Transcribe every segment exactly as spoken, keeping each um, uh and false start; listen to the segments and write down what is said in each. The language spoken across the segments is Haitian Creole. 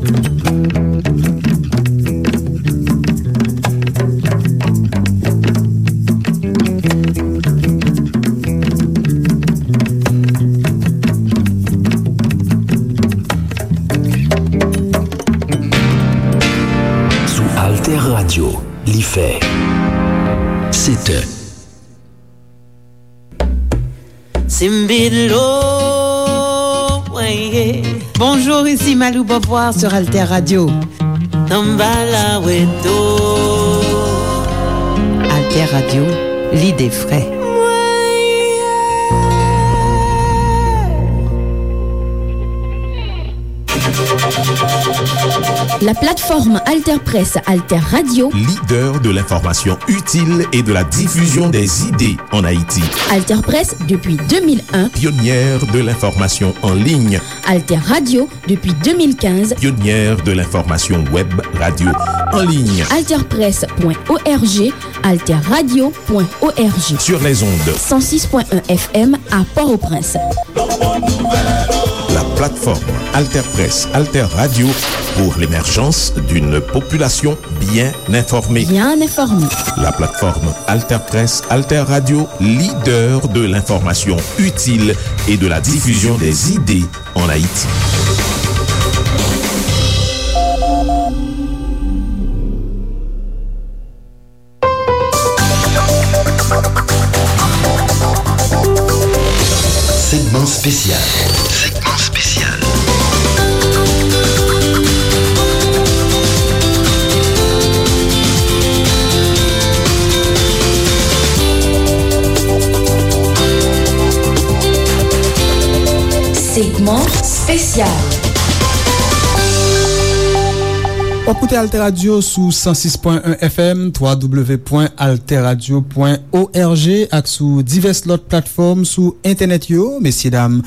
Sou Alter Radio, li fè sèt è. Simbilo, weye. Bonjour, ici Malou Beauvoir sur Alter Radio. Tambala weto. Alter Radio, l'idée vraie. La plateforme Alter Presse, Alter Radio. Leader de l'information utile et de la diffusion des idées en Haïti. Alter Presse depuis deux mille un. Pionnière de l'information en ligne. Alter Radio depuis deux mille quinze. Pionnière de l'information web radio en ligne. Alter Presse point O R G, Alter Radio point O R G. Sur les ondes. Cent six point un F M à Port-au-Prince. La plateforme Alter Presse, Alter Radio pour l'émergence d'une population bien informée. Bien informée. La plateforme Alter Presse, Alter Radio, leader de l'information utile et de la diffusion des idées en Haïti. Segman espesyal. Segman espesyal. Segman espesyal. W ap koute Alter Radio sou san sis pwen en F M, twa W pwen alter radio pwen O R G ak sou divès lòt platfòm sou entènèt yo. Mesye dam,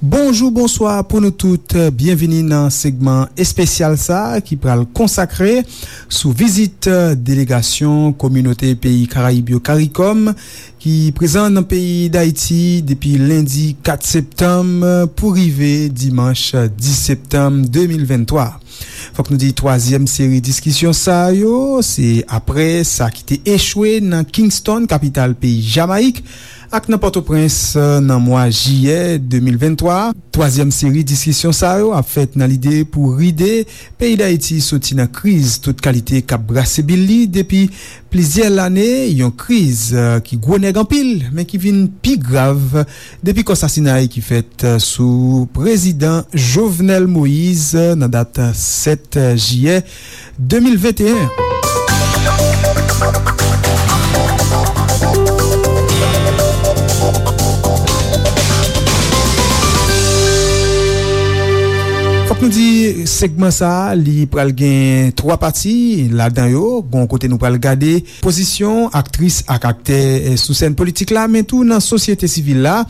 bonjou, bonswa pou nou tout. Byenvini nan segman espesyal sa a ki pral konsakre sou vizit delegasyon kominote peyi Karayib yo, karikòm, ki prezan nan peyi Dayiti depi lendi kat septanm pou rive dimanch dis septanm de mil venntwa. Fòk nou di twazyèm seri diskisyon sa yo, se apre sa ki te echwe nan Kingston, kapital peyi Jamayik, ak nan Pòtoprens, nan mwa jiyè de mil venntwa. Twazyèm seri diskisyon sa yo ap fèt nan lide pou ride peyi Dayiti soti nan kriz tout kalite k ap brase bil li depi plizyè lane, yon kriz, eh, ki gwo nèg anpil, men ki vin pi grav depi kò sasinay ki fèt, eh, sou prezidan Jovenel Moïse, eh, nan dat, eh, sèt jiyè de mil venteyen. Fòk nou di, segman sa a, li pral gen twa pati ladan yo. Gon kote nou pral gade pozisyon aktris ak aktè, eh, sou sèn politik la, men tou nan sosyete sivil la.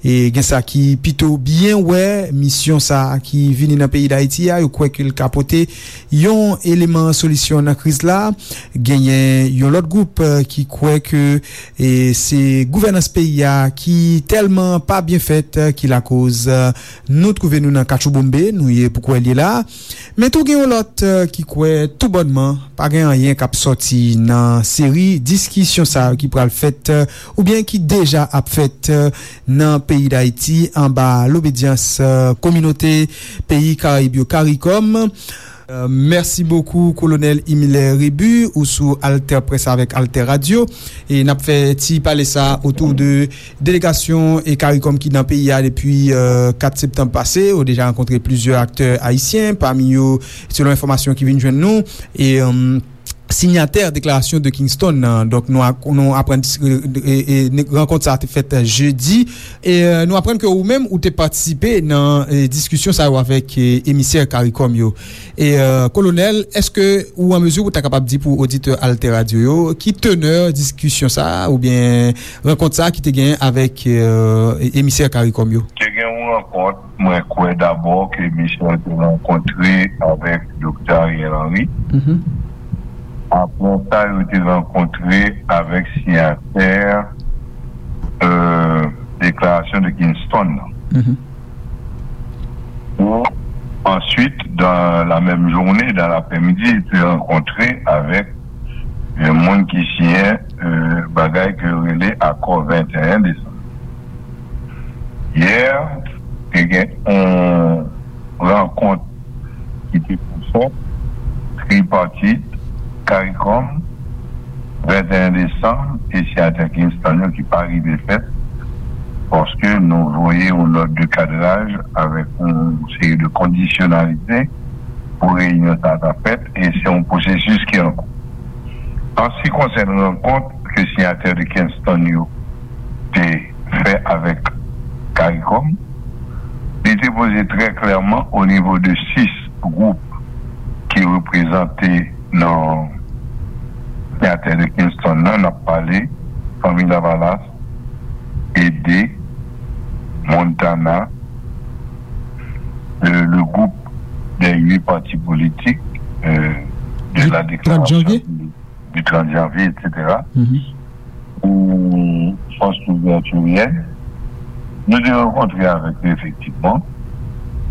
E gen sa ki pito byen wè misyon sa a ki vini nan peyi Dayiti a, yo kwè ke l ka pote yon eleman solisyon nan kriz la. Genyen yon lòt gwoup, eh, ki kwè ke, eh, se gouvènans peyi a ki tèlman pa byen fèt, eh, ki lakoz, eh, nou twouve nou nan katchoubonmbe nou ye pou kwè l ye la. Men tou gen yon lòt, eh, ki kwè toubònman pa gen anyen k ap sòti nan seri diskisyon sa yo ki pral fèt, eh, oubyen ki deja ap fèt, eh, nan peyi Dayiti anba lobedyans, eh, kominote peyi Karayib yo, karikòm. Eh, mèsi bokou, Kolonèl Imilè Rebu, ou sou Alter Presse avèk Alter Radio. E n ap fè ti pale sa otou de delegasyon e karikòm ki nan peyi a depi, eh, kat septanm pase. Yo deja rankontre plizyè aktè ayisyen, pami yo, selon enfòmasyon ki vin jwenn nou, e, em, sinyatè deklarasyon de Kingston nan. Donk, nou a-, nou aprann, e, e, e, rankont sa a te fèt, eh, jedi. E, eh, nou aprann ke ou menm, ou te patisipe nan, eh, diskisyon sa yo avèk, eh, emisè karikòm yo. E, eh, Kolonèl, èske ou an mezi pou ta kapab di pou oditè Alter Radio yo, ki tenè diskisyon sa a, oubyen rankont sa a ki te genyen avèk, eh, emisè karikòm yo? Te gen yon rankont, mwen kwè dabò ke misyon te rankontre avèk Doktè Ariel Henry. Mhm. Apre sa, yo te rankontre avèk siyatè, euh, deklarasyon de Kingston nan. Mhm. Pou, ans-, Ensuite, dans la même journée, dans l'après-midi, li te rankontre avèk yon moun ki siyen, euh, bagay ke yo rele Akò venteyen Desanm. Yè, te gen yon rankont ki te pou fèt, tripartit, CARICOM, venteyen Desanm, e siyatè Kingston yo ki pa rive fèt, paske nou voye yon nòt de kadraj avèk yon seri de kondisyonalite pou reyinyon sa a ta fèt, e se yon pwosesis ki an kou. An se ki konsène rankont ke siyatè de Kingston yo te fè avèk CARICOM, li te poze trè klèman o nivo de sis gwoup ki reprezante nan siyatè de Kingston nan, n ap pale Fanmi Lavalas, Ede, Montana, le, le groupe des huit partis politiques, euh, de la déclaration du, du trente janvier, et cetera, ou Force Libertarienne, nou te rankontre avèk yo efektivman.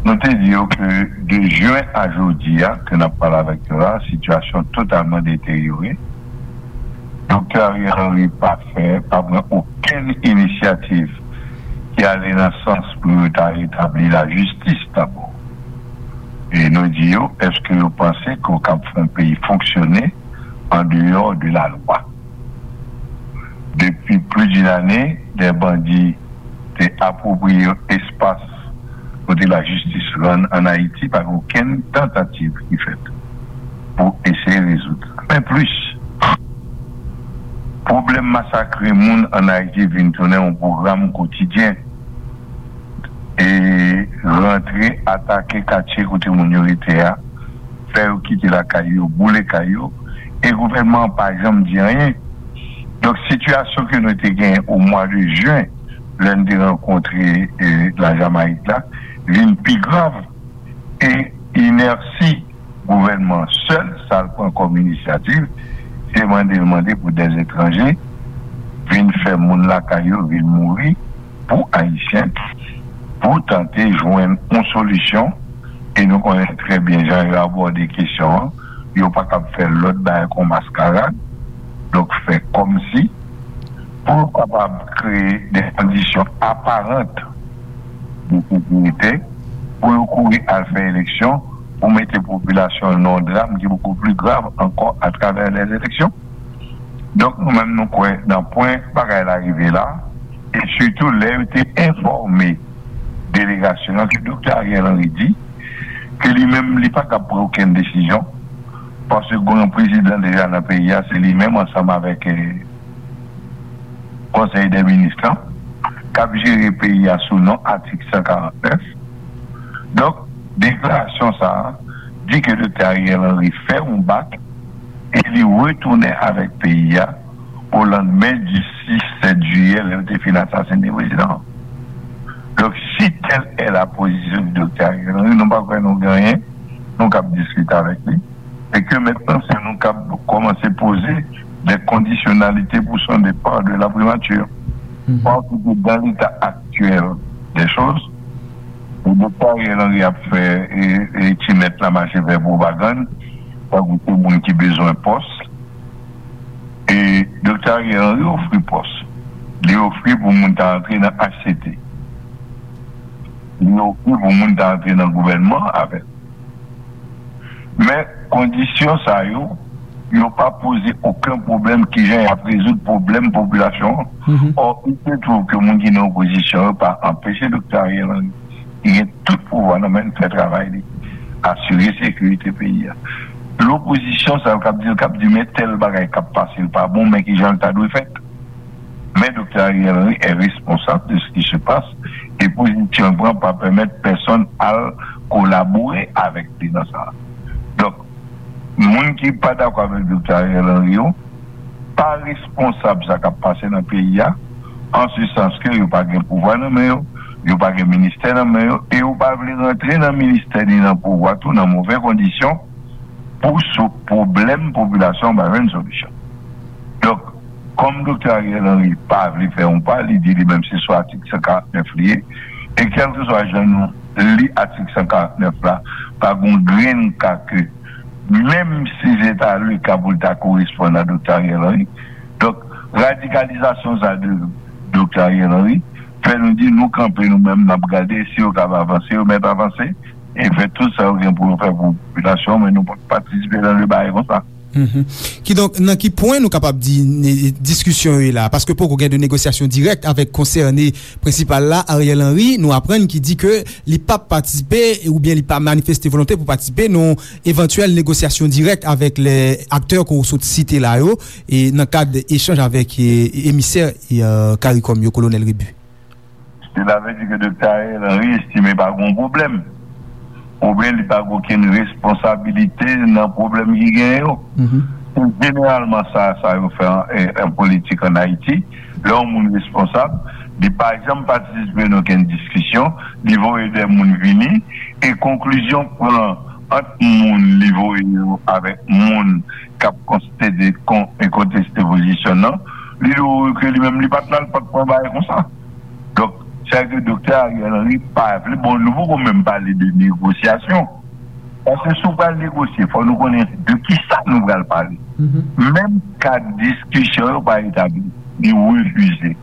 Nou te di yo ke de jen a jodi a, ke n ap pale avèk yo la, sitiyasyon totalman deteryore. Doktè Ariel Henry pa fè, pa pran okenn inisyativ ki ale nan sans pou yo ta retabli lajistis dabò. E nou di yo, èske yo panse ke yo kab fè yon peyi fonksyone an deyò de la lwa? Depi plis d'une ane, dè bandi te apwopriye yo espas kote lajistis rann ann Ayiti, pa gen okenn tantativ ki fèt pou eseye rezoud sa. Men plis, pwoblèm masakre moun ann Ayiti vin tounen yon pwogram kotidyen. E rantre, atake katye kote moun yo rete a, fè yo kite lakay yo, boule kay yo, e gouvènman an pa janm di anyen. Donk, sitiyasyon ke nou te genyen o mwa de jen, lè n te rankontre, e, Lajamayik la, vin pi grav. E inèsi gouvènman an sèl, sa l pran kòm inisyativ, se mande l mande pou dèzetranje vin fè moun lakay yo vin mouri pou Ayisyen, pou tante jwenn yon solisyon. E nou konnen trè byen jan yo abòde kesyon an. Yo pa kab fè lòt bagay kon maskarad. Donk, fè kòmsi pou yo kapab kreye de kondisyon aparant de sekirite pou yo kouri al fè eleksyon, pou mete popilasyon an nan yon dram ki bokou pli grav ankò atravè lè eleksyon. Donk, nou menm, nou kwè nan pwen bagay la rive la, e sitou lè yo te enfòme delegasyon an ke Doktè Ariel Henry di ke li menm, li pa kab pran okenn desizyon, paske gen yon prezidan deja nan peyi a, se li menm ansanm avèk, eh, Konsèy dè Minis lan, k ap jere peyi a sou non atik san karant nèf. Donk, deklarasyon sa a di ke Doktè Ariel Henry fè yon bak e li retounen avèk peyi a o landmen di sis, sèt jiyè, lè yo te fin asasinen prezidan an. Donk, si tèl è la pozisyon di Doktè Ariel Henry, nou pa kwè nou gen anyen, nou kab diskite avèk li. E ke mentnan, se nou kab kòmanse poze de kondisyonalite pou son depa de la primati. Paske dan leta aktyèl de choz, Doktè Ariel Henry ap fè, e, e ti mèt la mache fè pwopagann, tankou se moun ki bezwen pòs. E Doktè Ariel Henry ofri pòs. Li ofri pou moun ta antre nan H C T. Li ofri pou moun ta antre nan gouvènman avè l. Men kondisyon sa yo, yo pa poze okenn pwoblèm kijan y ap rezoud pwoblèm popilasyon an. Ò, il se trouve ke moun ki nan opozisyon yo pa anpeche Doktè Ariel Henry, ki gen tout pouvwa nan men l, fè travay li, asire sekirite peyi a. Lopozisyon sa yo k ap di l, k ap di men tèl bagay k ap pase l pa bon, men kijan l ta dwe fèt. Men Doktè Ariel Henry est responsable de ce qui se passe, e pozisyon l pran pa pèmèt pèsonn al kolabore avèk li nan sa. Donk, moun ki pa dakò avèk Doktè Ariel Henry yo pa responsab sa k ap pase nan peyi a, an se sans ke yo pa gen pouvwa nan men yo, yo pa gen ministè nan men yo, e yo pa vle rantre nan ministè ni nan pouvwa tou nan move kondisyon pou sou pwoblèm popilasyon an pa jwenn solisyon. Donk, kòm Doktè Ariel Henry pa vle fè yon pa, li di li menm se sou atik san karant nèf li ye, e kèlkeswa jan nou li atik san karant nèf la, pa gen yon grenn ka ke, menm si se ta le ka pou l ta koresponn a Doktè Ariel Henry. Donk, radikalizasyon sa de Doktè Ariel Henry fè nou di nou kanpe nou menm, n ap gade si yo kab avanse, yo mèt avanse, e fè tout sa yo gen pou yo fè pou popilasyon, men nou p ap patisipe nan de bagay konsa. Mhm. Kidonk, nan ki pwen nou kapab di ne- diskisyon yo ye la? Paske poko gen de negosyasyon dirèk avèk konsène prensipal la, Ariel Henry, nou aprann ki di ke li p ap patisipe oubyen li pa manifeste volonte pou patisipe nan evantyèl negosyasyon dirèk avèk lè aktè ke w sot site la yo, e nan kad echanj avèk e, emisè e, e, CARICOM yo, Kolonèl Rebu. Cela veut dire que Doktè Ariel Henry estime pa gen pwoblèm, oubyen li pa gen okenn responsabilite nan pwoblèm ki genyen yo. Mhm. Se jeneralman sa, sa yo fè an, en, en politik an Ayiti. Lè yon moun responsab, li pa janm patisipe nan okenn diskisyon, li voye de moun vini, e konklizyon pran ant moun li voye yo avèk moun k ap konstede kon, e konteste pozisyon nan, li dwe wè ke li menm li pa t la, li pa t pran bagay konsa. Donk, sa ke Doktè Ariel Henry pa vle, bon, nou poko menm pale de negosyasyon. Paske si w pral negosye, fò nou konnen de ki sa nou pral pale. Mhm. Menm kad diskisyon yo pa etabli, li refize.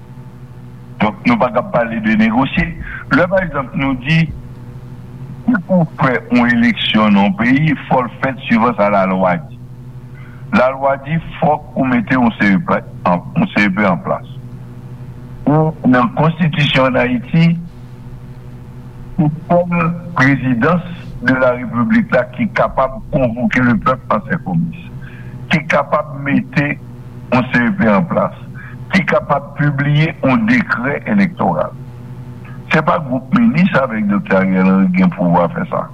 Donk, nou pa kab pale de negosye. Lè, pa egzanp, nou di, si pou fè yon eleksyon nan yon peyi, fò l fèt suivan sa lalwa di. Lalwa di, fòk ou mete yon C E P an, yon C E P an plas. Ou nan konstitisyon an Ayiti, se sèl prezidans de la repiblik la ki kapab konvoke le pèp an senkomis, ki kapab mete yon C E P an plas, ki kapab pibliye yon dekrè elektoral. Se pa gwoup minis avèk Doktè Ariel Henry gen pouvwa fè sa.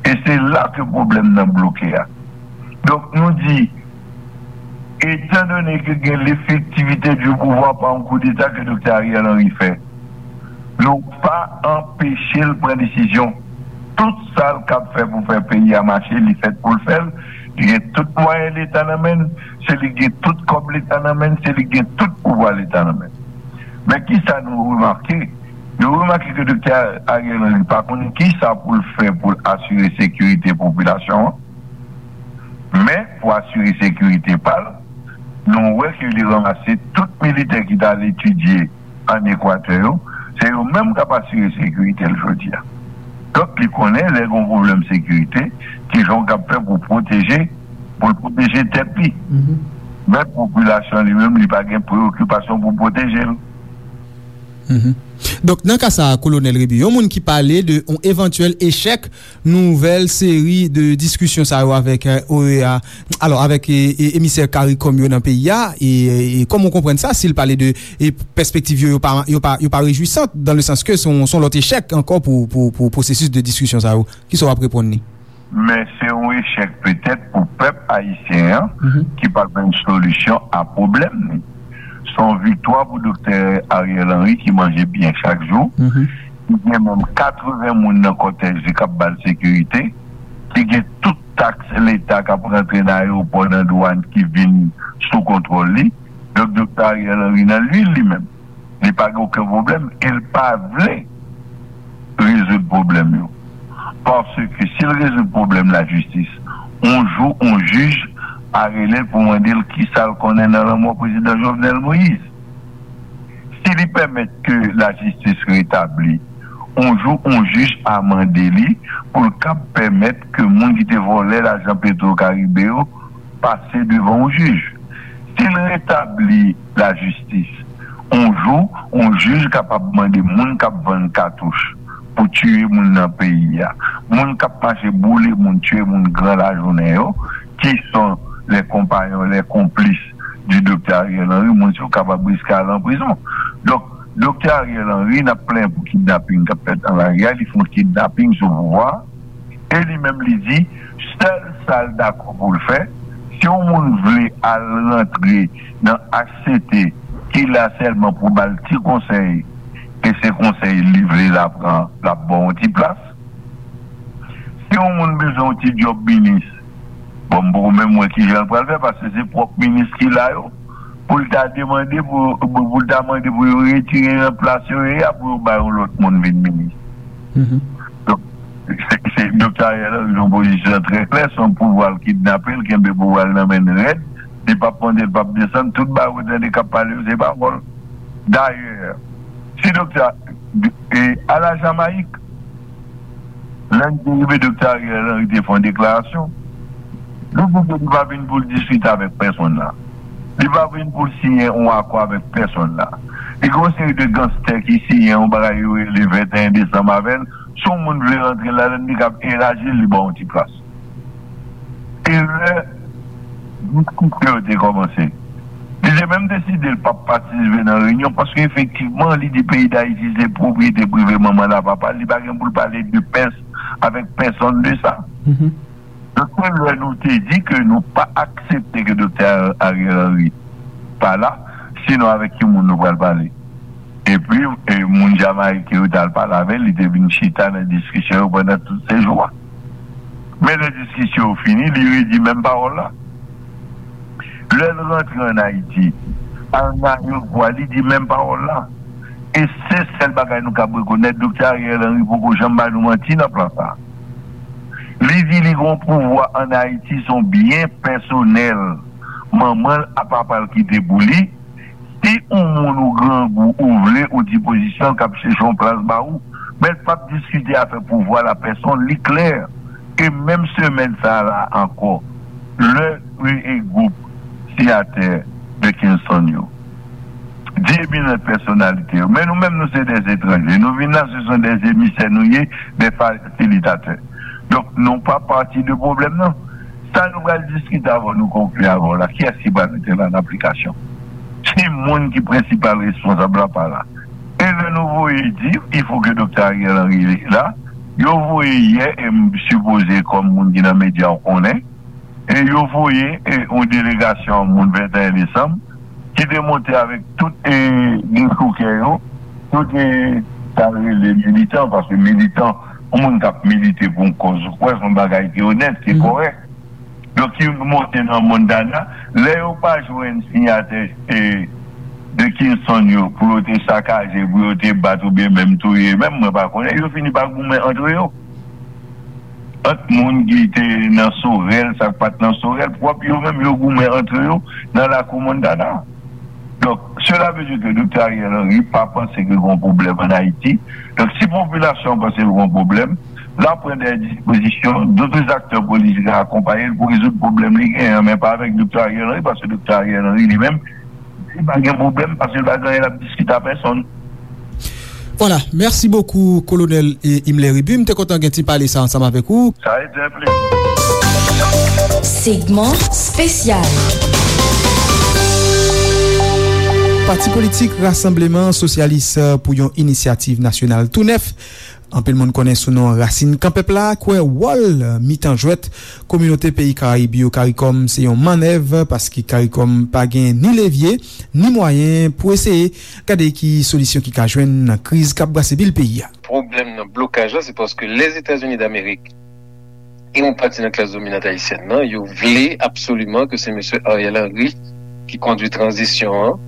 E se la ke pwoblèm nan bloke a. Donk, nou di, etandone ke gen lefektivite di pouvwa pa yon koudeta ke Doktè Ariel Henry fè, nou pa anpeche l pran desizyon. Tout sa l kab fè pou fè peyi a mache, li fèt pou l fè l. Li gen tout mwayen Leta nan men l, se li gen tout kòb Leta nan men l, se li gen tout pouvwa Leta nan men l. Men ki sa nou remake? Nou remake ke Doktè Ariel Henry pa konnen ki sa pou l fè pou l asire sekirite popilasyon an. Men, pou asire sekirite pa l, nou wè ke li ranmase tout militè ki t al etidye ann Ekwatè yo, se yo menm k ap asire sekirite l jodi a. Donk, li konnen lè gen yon pwoblèm sekirite, ki jan w kab fè pou pwoteje, pou l pwoteje tèt li. Mhm. Men popilasyon li menm, li pa gen preyokipasyon pou pwoteje l. Mhm. Donk, nan ka sa a, Kolonèl Rebu, yon moun ki pale de yon evantyèl echèk nouvèl seri de diskisyon sa yo avèk, eh, O E A, alò, avèk, eh, eh, emisè CARICOM yo nan peyi a, e, e kòman w konprann sa, si l pale de, eh, pèspektiv yo, yo pa, yo pa, yo pa rejwisant, dans le sens que se yon, se yon lòt echèk ankò pou, pou, pou pwosesis de diskisyon sa yo? Kisa w ap reponn li? Men se yon echèk petèt pou pèp ayisyen an, mhm, ki pa jwenn solisyon a pwoblèm li. Se yon viktwa pou Doktè Ariel Henry ki manje byen chak jou. Mhm. Ki gen menm katreven moun nan kòtèj li k ap ba l sekirite. Ki gen tout taks Leta k ap rantre nan ayewopò, nan dwàn ki vin sou kontwòl li. Donk, Doktè Ariel Henry nan lwil li menm. Li pa gen okenn pwoblèm e l pa vle rezoud pwoblèm yo. Paske si l rezoud pwoblèm lajistis, yon jou, yon jij a rele l pou mande l kisa l konnen nan lanmò prezidan Jovenel Moïse. Si li pèmèt ke lajistis retabli, yon jou, yon jij a mande li pou l kab pèmèt ke moun ki te vòlè lajan Petro Caribe yo pase devan yon jij. Si l retabli lajistis, yon jou, yon jij kapab mande moun k ap vann katouch pou tiye moun nan peyi a, moun k ap mache boule moun, tiye moun gran lajounen yo, ki sont les compagnons, les complices du Doktè Ariel Henry, moun sa yo kapab riske al an prizon. Donk, Doktè Ariel Henry, n ap plenyen pou kidnaping k ap fèt nan lari a, li fè yon kidnaping sou pouvwa a, e li menm li di, sèl sa l dakò pou l fè, si yon moun vle al rantre nan H C T ki la sèlman pou ba l ti konsèy, e se konsèy li vle l ap pran, l ap ba w yon ti plas. Si yon moun bezwen yon ti djòb minis, bon, m poko menm wè kijan l pral fè, paske se pwòp minis ki la yo, pou l ta demande, pou, pou, pou l ta mande pou yo retire nan plas yo ye a, pou yo bay yon lòt moun vin minis. Mhm. Doktè Ariel Henry nan pozisyon trè klè, se yon pouvwa l kidnape, l kenbe pouvwa l nan men l rèd, li p ap monte, l p ap desann, tout bagay ou tande k ap pale yo, se pawòl. Dayè, si doktè, e, a la Jamayik, lè n te rive, doktè Ariel Henry te fè yon deklarasyon, li di ke li pa vin pou l diskite avèk pèsonn la. Li pa vin pou l siyen yon akò avèk pèsonn la. Li gen yon seri de ganstè ki siyen yon bagay yo rele venteyen desanm avè l. Si yon moun vle rantre ladann, li kab elaji l, li ba w yon ti plas. E lè diskisyon yo te kòmanse, li te menm deside l p ap patisipe nan reyinyon, paske efektivman, li di peyi Dayiti se pwopriyete prive manman l ak papa l, li pa gen pou l pale de pès avèk pèsonn de sa. Donk, se lè nou te di ke nou pa aksepte ke doktè Ariel Henry pa la, sinon avèk ki moun nou pral pale. Epi, e, moun Jamayik yo t al pale avè l, li te vin chita nan diskisyon yo pandan tout sejou a. Men lè diskisyon yo fini, li redi menm pawòl la. Lè l rantre ann Ayiti, al nan ayewopò a, li di menm pawòl la. E se sèl bagay nou kab rekonèt, doktè Ariel Henry poko janm ba nou manti nan plan sa a. Li di li gen yon pouvwa ann Ayiti, se yon byen pèsonèl manman l ak papa l kite pou li. Si yon moun ou grangou, ou vle, ou di pozisyon l, k ap chèche yon plas ba ou, men l p ap diskite afè pouvwa la pèsonn, li klè. E menm semèn sa a la ankò, lè, e, e gwoup siyatè de Kingston yo di eminant pèsonalite yo, men nou menm, nou se dè etranje. Nou vin la, se son dè emisè nou ye, dè fasilitatè. Donk, nou pa pati de pwoblèm nan. Sa nou pral diskite avè w, nou konkli avè w la, kiyès ki pral mete l an aplikasyon? Si moun ki prensipal responsab la pa la. E lè nou voye di, il faut que doktè Ariel Henry la, yo voye yè, e m sipoze kòm moun ki nan medya w konnen, e yo voye, e, yon delegasyon moun venteyen desanm, ki te monte avèk tout, e, dechoukè yo, tout, e, sa rele militan, paske militan, yon moun k ap milite pou yon kòz ou kwè, se yon bagay ki onèt, ki kòrèk. Donk, ki monte nan Montana, lè yo pa jwenn siyatè, e, de Kingston yo, pou yo te sakaje, pou yo te bat oubyen menm touye, menm mwen pa konnen, yo fini pa goumen antre yo. Ant moun ki te nan Sorèl, sa k pa t nan Sorèl, pwòp yo menm, yo goumen antre yo nan lakou Montana. Donk, cela veut dire que doktè Ariel Henry pa panse ke gen yon pwoblèm ann Ayiti. Donk, si popilasyon an panse l gen yon pwoblèm, l ap pran dè dispozisyon, dòt aktè politik a akonpaye l pou rezoud pwoblèm li genyen an, men pa avèk doktè Ariel Henry, paske doktè Ariel Henry li menm, li pa gen pwoblèm, paske l pa gen anyen l ap diskite a pèsonn. Vwala, mèsi bokou, Kolonèl, e, Imler Rébu. M te kontan gen ti pale sa ansanm avèk ou. Sa rete yon plezi. Segment spécial. Pati politik Rasanbleman Sosyalis pou yon Inisyativ Nasyonal tou nèf, anpil moun konnen sou non Rasin Kan Pèp La, kwè wòl mitan jwèt kominote peyi Karayib yo, CARICOM, se yon mannèv, paske CARICOM pa gen ni levye, ni mwayen pou eseye gade ki solisyon ki ka jwenn nan kriz k ap brase bil peyi a. Pwoblèm nan blokaj la, se paske Lèzetazini Damerik e yon pati nan klas dominant ayisyèn nan, yo vle absoliman ke se mesye Ariel Henry ki kondui tranzisyon an,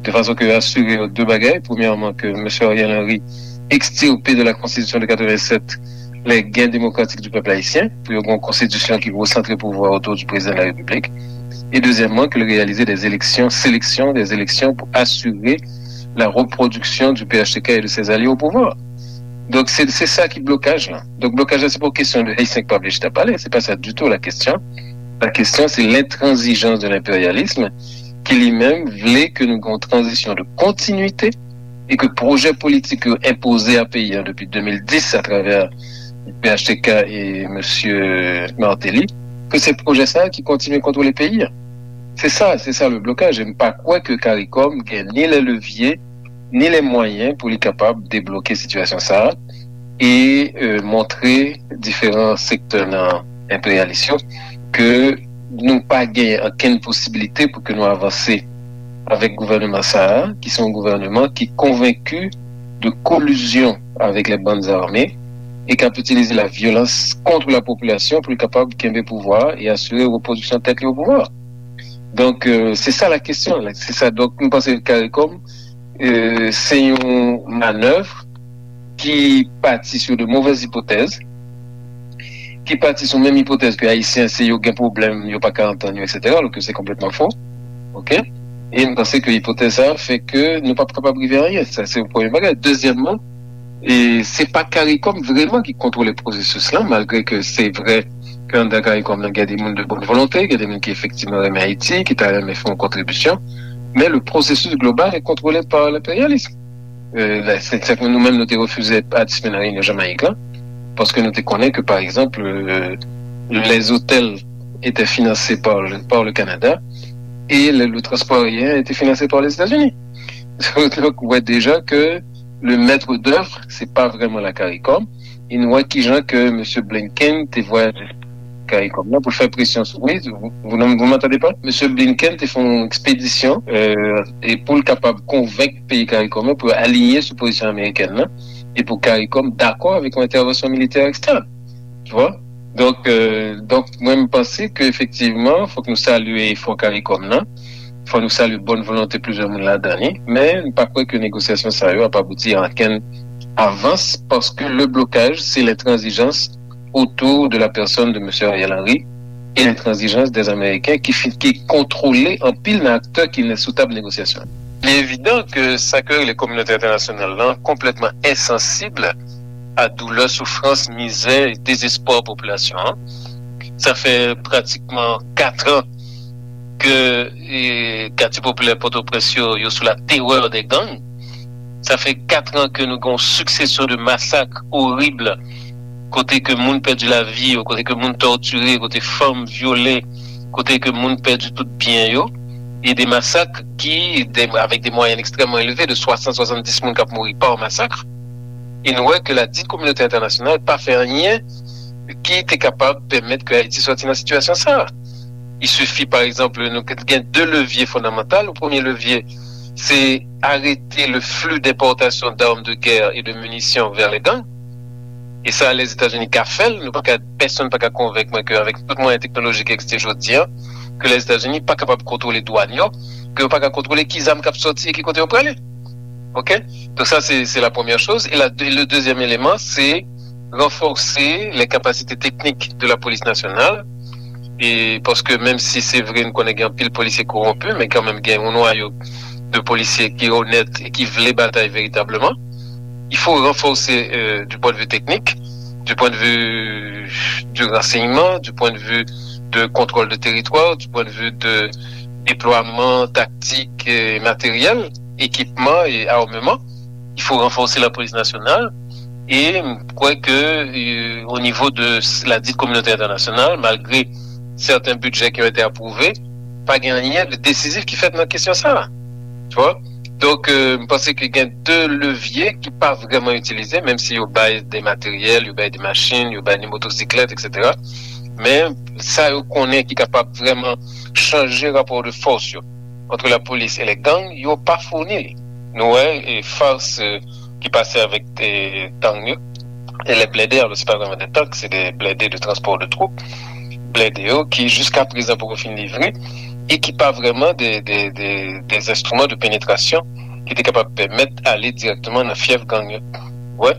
de fason ke yo asire yo de bagay. Premyèman, ke mesye Ariel Henry ekstirpe de la Constitution de quatre-vingt-sept les gains démocratiques du peuple haïtien, pou yo gen yon konstitisyon ki resantre pouvwa otou di prezidan de la Repiblik. E dezyèmman, ke l reyalize des élections, sélection, des élections pou asire la reproduction du P H T K et de ses alliés au pouvoir. Donk, se, se sa ki blokaj la. Donk, blokaj la, se pa yon kesyon de Ayisyen ki pa vle chita pale, se pa sa ditou la kesyon. La kesyon, se l'intransigeance de l'impérialisme, ki li menm vle ke nou gen yon tranzisyon de kontinwite e ke pwojè politik yo enpoze a peyi a depi de mil dis atravè P H T K e mesye Martelly, ke se pwojè sa a ki kontinye kontwole peyi a. Se sa, se sa le blokaj. E m pa kwè ke CARICOM gen ni les leviers, ni les moyens pou li kapab debloke sitiyasyon sa a e, euh, montre diferan sektè nan enperyalis yo ke nou pa gen okenn posibilite pou ke nou avanse avèk gouvèneman sa a, ki se yon gouvèneman ki konvenki de kolizyon avèk les bandes armées e k ap itilize la vyolans kont la popilasyon pou li kapab kenbe pouvwa a e asire repwodiksyon tèt li o pouvwa. Donk, euh, se sa la kesyon, la. Se sa. Donk, m panse ke CARICOM, euh, se yon manèv ki pati sou de movèz ipotèz. ki pati sou menm ipotèz ke Ayisyen se yo gen pwoblèm, yo pa ka antann yo, etsetera, alò ke se konplètman fo. Oke? E m panse ke ipotèz sa a fè ke nou p ap kapab rive anyen. Sa se premye bagay. Dezyèmman, e se pa CARICOM vrèman ki kontwole pwosesis lan, malgre ke se vrè ke anndan CARICOM nan gen de moun de bòn volonte, gen de moun ki efektivman renmen Ayiti, ki ta renmen fè yon kontribisyon, men le processus global est contrôlé par l'impérialisme. Euh, la, se, se, nou menm, nou te refize patisipe nan reyinyon Jamayik lan, paske nou te konnen ke, pa egzanp, euh, les hôtels étaient financés par le, par le Canada et le, le transport aérien était financé par les États-Unis. Donk, ou wè deja ke le maître d'œuvre, se pa vrèman la CARICOM. E nou wè kijan ke mesye Blinken te vwayaje CARICOM nan pou fè presyon sou, wi, vous, vous, vous m'entendez pas? Mesye Blinken te fè yon ekspedisyon, euh, e pou l kapab konvenk peyi CARICOM yo pou yo aliyen sou pozisyon amerikèn nan e pou CARICOM dakò avèk yon entèvansyon militè ekstèn. Tu vois? Donk, euh, donk, mwen, m panse ke efektivman, fòk nou salye efò CARICOM nan. Fò nou salye bòn volonte plizyè moun ladan li. Men, m pa kwè ke negosyasyon sa yo ap abouti a ankenn avans, paske le blocage, c'est l'intransigeance autour de la personne de monsieur Ariel Henry et l'intransigeance des Américains qui, fi- qui contrôlent anpil nan aktè ki nan sou tab negosyasyon. Il est évident que sa ke le communauté internationale là complètement insensible à douleur, souffrance, misère et désespoir population, hein. Ça fait pratiquement quatre ans que eh, katye popilè Pòtoprens yo, yo sou la terreur des gangs. Sa fè kat an ke nou gen yon succession de massacres horribles, kote ke moun pèdi lavi yo, kote ke moun tòtire, kote fanm vyole, kote ke moun pèdi tout byen yo, e de masak ki, de, avec des moyennes extrêmement élevées, de swasant, swasanndis moun k ap mouri pa masak. E nou wè ke la dite communauté internationale pa fè anyen ki te kapab pèmèt ke Ayiti sòti nan sitiyasyon sa a. Il suffit, par exemple, nou gen de levye fondamantal. Le premier levier, c'est arrêter le flux d'importation d'armes de guerre et de munitions vers les gangs. E sa, Lèzetazini ka fè l. Nou pa ka, pèsonn pa ka konvenk mwen ke avèk tout mwayen teknolojik ki egziste jodi a, ke Lèzetazini pa kapab kontwole dwàn yo, ke yo pa ka kontwole ki zam k ap sòti e ki kote yo prale. Ok? Donc ça, c'est, c'est la première chose. Et la, le deuxième élément, c'est renforcer les capacités techniques de la police nationale. E paske menm si se vre nou konnen gen anpil polisye kowonpi, men kanmenm gen yon nwayo de polisye ki onèt e ki vle batay veritableman. Il faut renforcer euh, du point de vue technique, du point de vue du renseignement, du point de vue de contrôle de territoire, du point de vue de déploiement tactique et matériel, équipement et armement. Il faut renforcer la police nationale. E m kwè ke euh, au niveau de la dite communauté internationale, malgré certains budgets qui ont été approuvés, pa gen anyen de desizif ki fèt nan kesyon sa a. Tu vois? Donk, euh, m panse ke gen de levye ki pa vrèman itilize, menm si yo bay de materyèl, yo bay de machin, yo bay de motosiklèt, etsetera. Men sa yo konnen ki kapab vrèman chanje rapò de fòs yo entre la police et les gangs, yo pa founi li. Nou wè e fars euh, ki pase avèk euh, tank yo. E les blindés, alors c'est pas vraiment des tanks, c'est des blindés de transport de troupes. Blindés yo ki jiska prezan poko fin livre e ki pa vrèman de, de, de, des instruments de pénétration ki te kapab pèmèt ale direkteman nan fyèf gang yo. Ouais.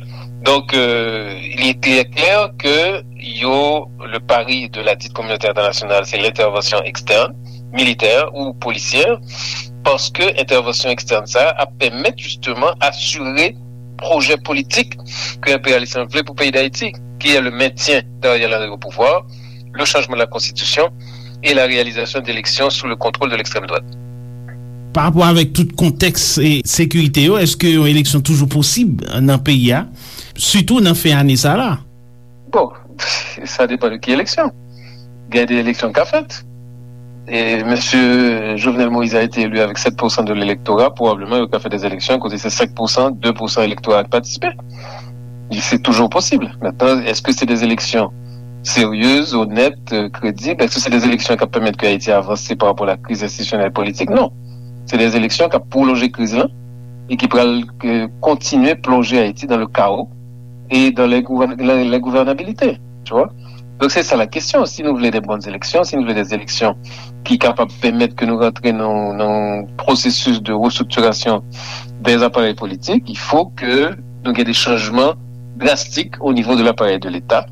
Donc, euh, il est très clair que yo, le pari de la dite communauté internationale, c'est l'intervention externe, militaire ou policière, paske entèvansyon ekstèn sa a ap pèmèt jisteman asire pwojè politik ke enperyalis lan vle pou peyi Dayiti, ki est le maintien d'Ariel Henry au pouvoir, le changement de la constitution et la réalisation d'élections sous le contrôle de l'extrême droite. Pa rapò avèk tout kontèks e sekirite yo, èske yon eleksyon toujou posib nan peyi a, sitou nan fen ane sa la? Bon, sa depann de ki eleksyon. Gen de eleksyon k ap fèt. E mesye Jovenel Moïse a été élu avec sept pour cent de l'électorat, probablement yo ka fè des élections kote se cinq pour cent, deux pour cent elektora a k patisipe. Se toujou posib. Maintenant, est-ce que c'est des élections sérieuses, honnêtes, euh, crédibles? Est-ce que c'est des élections k ap pèmèt ke Ayiti avanse par rapport à la crise institutionnelle et politique? Non. Se des élections k ap pwolonje kriz lan e ki pral euh, kontinye plonje Ayiti dans le chaos et dans l'ingouvernabilité. Tu vois? Donc c'est ça la question. Si nou vle de bonnes élections, si nou vle des élections ki kapab pèmèt ke nou rantre nan yon pwosesis de restriktirasyon des appareils politiques, il faut que nou gen de chanjman drastik au niveau de l'appareil de l'État.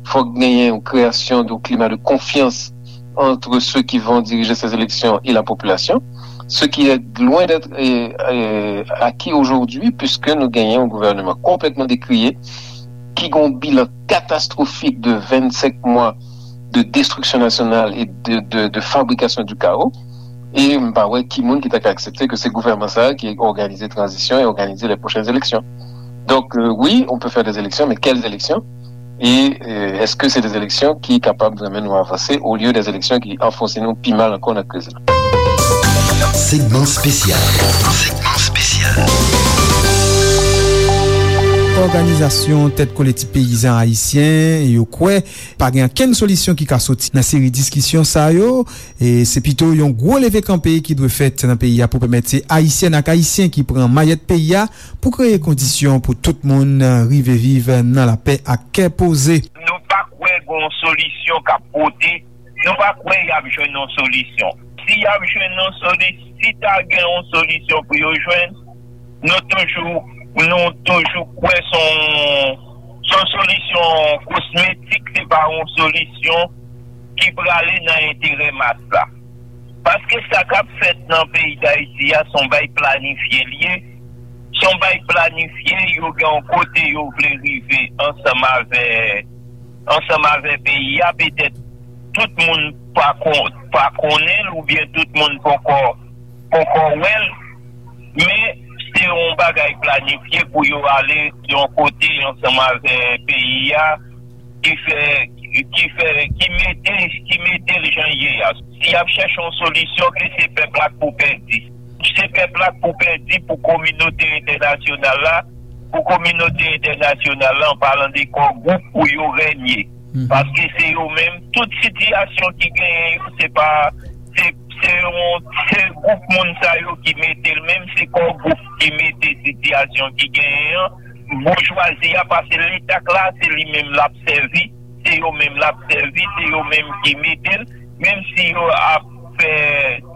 Fok genyen yon création de climat de confiance entre ceux qui vont diriger ces élections et la population, ce qui est loin d'être euh, euh, acquis aujourd'hui, puisque nou genyen yon gouvènman konplètman décrié, ki gen yon bilan catastrophique de vingt-cinq mois de destruction nationale et de, de, de fabrication du chaos. E m pa wè ki moun ki ta ka aksepte ke se gouvènman sa a ki òganize tranzisyon e òganize les prochaines élections. Donc, euh, oui, on peut faire des élections, mais quelles élections? Et euh, est-ce que c'est des élections qui capable vraiment nous avancer au lieu des élections qui enfoncent nous pi mal encore dans la crise? Segment spécial. Segment spécial. Òganizasyon Tèt Kolektif Peyizan Ayisyen yo kwè pa gen okenn solisyon ki ka soti nan seri diskisyon sa yo. E se pito yon gwo leve kanpe ki dwe fèt nan peyi a pou pèmèt se Ayisyèn ak Ayisyen ki pran mayèt peyi a pou kreye kondisyon pou tout moun rive viv nan lapè ak kè poze. Nou pa kwè gen yon solisyon k ap pote, nou pa kwè y ap jwenn yon solisyon. Si y ap jwenn yon solisyon, si ta gen yon solisyon pou yo jwenn, nou toujou, nou toujou kwè se yon, se yon solisyon kosmetik, se pa yon solisyon ki prale nan enterè mas la. Paske sa k ap fèt nan peyi Dayiti a, se yon bay planifye l ye. Se yon bay planifye, yo gen yon kote yo vle rive ansanm avè, ansanm avè peyi a. Petèt tout moun pa kon, pa konnen l oubyen tout moun poko, poko wè l. Men se yon bagay planifye pou yo ale yon kote ansanm avè peyi a, ki fè, ki fè, ki mete, ki mete l jan l ye a. Si y ap chèche yon solisyon, ke se pèp la k pou pèdi. Se pèp la k pou pèdi pou kominote entènasyonal la, pou kominote entènasyonal la, an palan de kò gwoup, pou yo renye. Paske se yo menm, tout sitiyasyon ki genyen yo, se pa, se, se yon, se gwoup moun sa yo ki mete l, menm se kò gwoup ki mete sitiyasyon ki genyen an, boujwazi a, paske Leta k la, se li menm l ap sèvi, se yo menm l ap sèvi, se yo menm ki mete l, menm si yo ap fè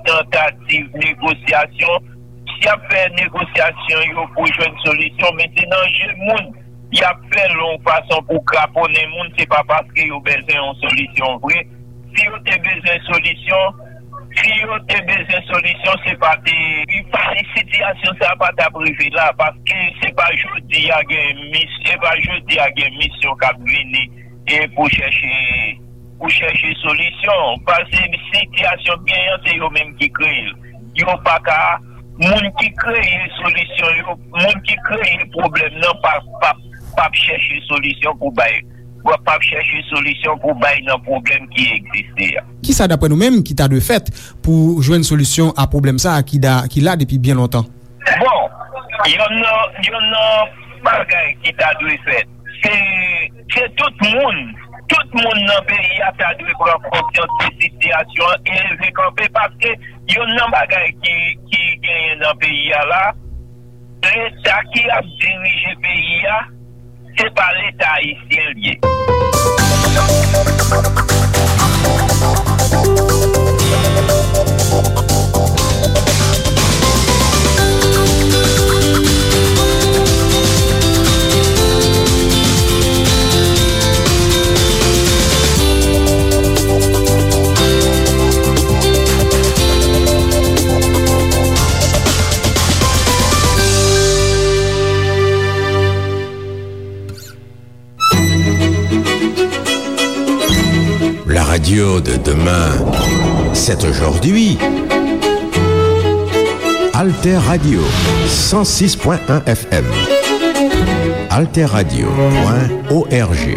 tantativ negosyasyon, si y ap fè negosyasyon yo pou jwenn solisyon, men se nan je moun y ap fè l yon fason pou kraponnen moun, se pa paske yo bezwen yon solisyon vre. Si yo te bezwen solisyon, si yo te bezwen solisyon, se pa te, pa, sitiyasyon sa a pa t ap rive la, paske se pa jodi a gen mis, se pa jodi a gen misyon k ap vini e pou chèche, pou chèche solisyon. Paske sitiyasyon k genyen an, se yo menm ki kreye l. Yo pa ka, moun ki kreye solisyon yo, moun ki kreye pwoblèm nan pa, pa, p ap chèche solisyon pou bay, p ap chèche solisyon pou bay nan pwoblèm ki egziste a. Kisa, daprè nou menm, ki ta dwe fèt pou jwenn solisyon a pwoblèm sa a ki da, ki la depi byen lontan? Bon, yonn nan, yonn nan bagay ki ta dwe fèt, se, se tout moun, tout moun nan peyi a ta dwe pran konsyans de sitiyasyon an e leve kanpe, paske yonn nan bagay ki, ki genyen nan peyi a la, Leta ki ap dirije peyi a, se pa Leta ayisyen l ye. La radio de demain, c'est aujourd'hui. Alter Radio, cent six point un F M. Alter Radio point O R G.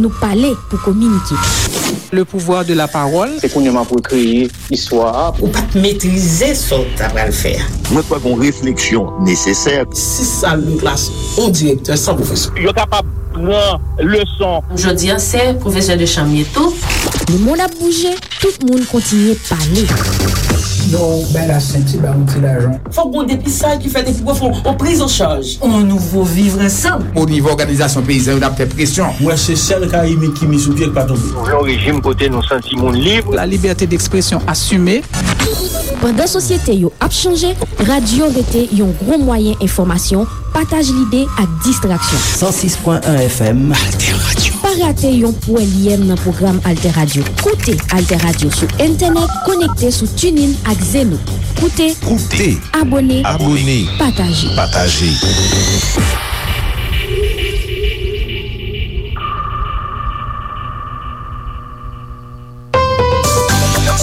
Nou pale pou kominike. Le pouvoir de la parole. Se kounye a m ap rekreye istwa a. Ou pa t metrize sa w ta pral fè a. Mwen kwè gen yon refleksyon nesesè. Sis sal de klas, yon direktè san pwofesè. Yo kapab pran leson. Jodi a, se pwofesè de chanm ye tou. Lemonn ap bouje, tout moun kontinye pale. Yo bay la senti, ba yon ti lajan. Fòk gon depistaj ki fèt epi pou fè yon priz an chaj. On nouvo vivre ansanm. O nivo òganizasyon peyizan yo, n ap fè presyon. Mwen se sèl Karibyen ki mi sou pye k pa tonbe. Nou vle yon rejim kote nou santi moun lib. La liberté d'expression assumée. Pandan sosyete yo ap chanje, radyo rete yon gwo mwayen enfòmasyon, pataj lide ak distraksyon. San sis pwen en F M. Alter Radio. Pa rate yon pwèl yèm nan pwogram Alter Radio. Koute Alter Radio sou entènèt, konekte sou TuneIn ak Zeno. Koute, Koute. Abone, Abone. Pataje. Pataje.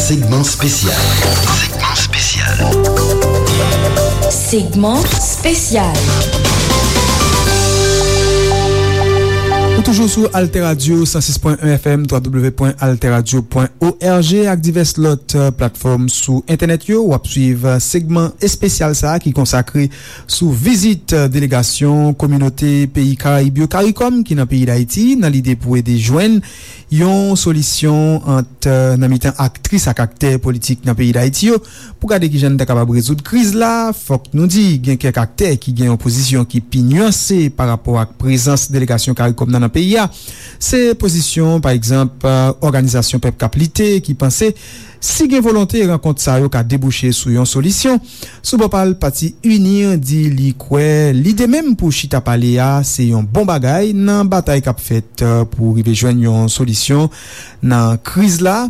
Segment spécial. Segment spécial. Segment spécial. Ou toujou sou Alter Radio, san sis pwen en F M, twa W pwen alter radio pwen O R G ak divès lòt, euh, platfòm sou entènèt yo. W ap swiv, euh, segman espesyal sa a ki konsakre sou vizit, euh, delegasyon kominote peyi Karayib yo, CARICOM, ki nan peyi Dayiti, nan lide pou ede jwenn yon solisyon ant, euh, nan mitan aktris ak aktè politik nan peyi Dayiti yo, pou gade kijan n ta kapab rezoud kriz la. Fòk nou di, gen kèk aktè ki gen yon pozisyon ki pi nyanse pa rapò ak prezans delegasyon CARICOM nan, nan peyi a. Se pozisyon, pa egzanp, euh, Òganizasyon Pèp k ap Lite, ki panse si gen volonte, rankont sa yo ka debouche sou yon solisyon. Sou bò pa l, pati UNIR di li kwè lide menm pou chita pale a se yon bon bagay nan batay k ap fèt, euh, pou rive jwenn yon solisyon nan kriz la.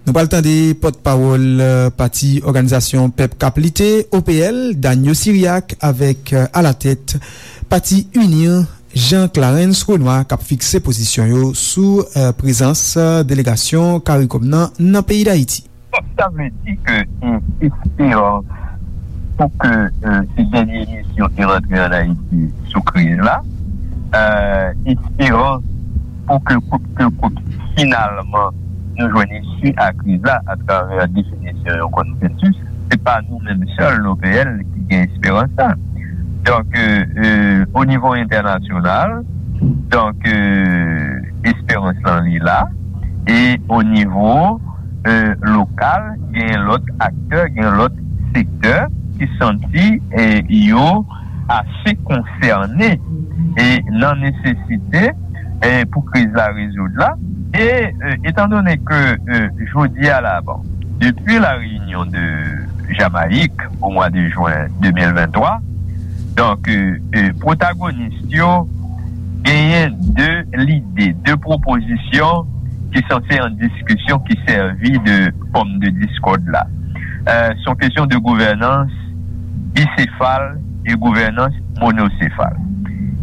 Nou pral tande pòtpawòl, euh, pati Òganizasyon Pèp k ap Lite, O P L, Daniel Syriac, avèk, euh, alatèt pati UNIR, Jean Clarens Renois, k ap fikse pozisyon yo sou, euh, prezans, euh, delegasyon CARICOM nan, nan peyi Dayiti. Donk, sa vle di ke, e, esperans pou ke, e, se dènye misyon ki rantre ann Ayiti sou kriz la, e, esperans pou ke kout ke kout, finalman, nou jwenn isi a kriz la atravè definisyon yon konsansis, se pa nou menm sèl, O P L, ki gen esperans sa. Donk, e, e, o nivo entènasyonal, donk, e, esperans lan li la, e o nivo e, lokal, gen lòt aktè, gen lòt sektè ki santi, e, yo ase konsène, e, nan nesesite, e, pou kriz la rezoud la. E, e, etandone ke, e, jodi a la, bon, depi la reyinyon de Jamayik o mwa de jen de mil venntwa, donk, e, e, pwotagonis yo genyen de lide, de pwopozisyon ki sanse an diskisyon ki sèvi de pòm de diskòd la. E, se yon kesyon de gouvènans bisefal e gouvènans monosefal.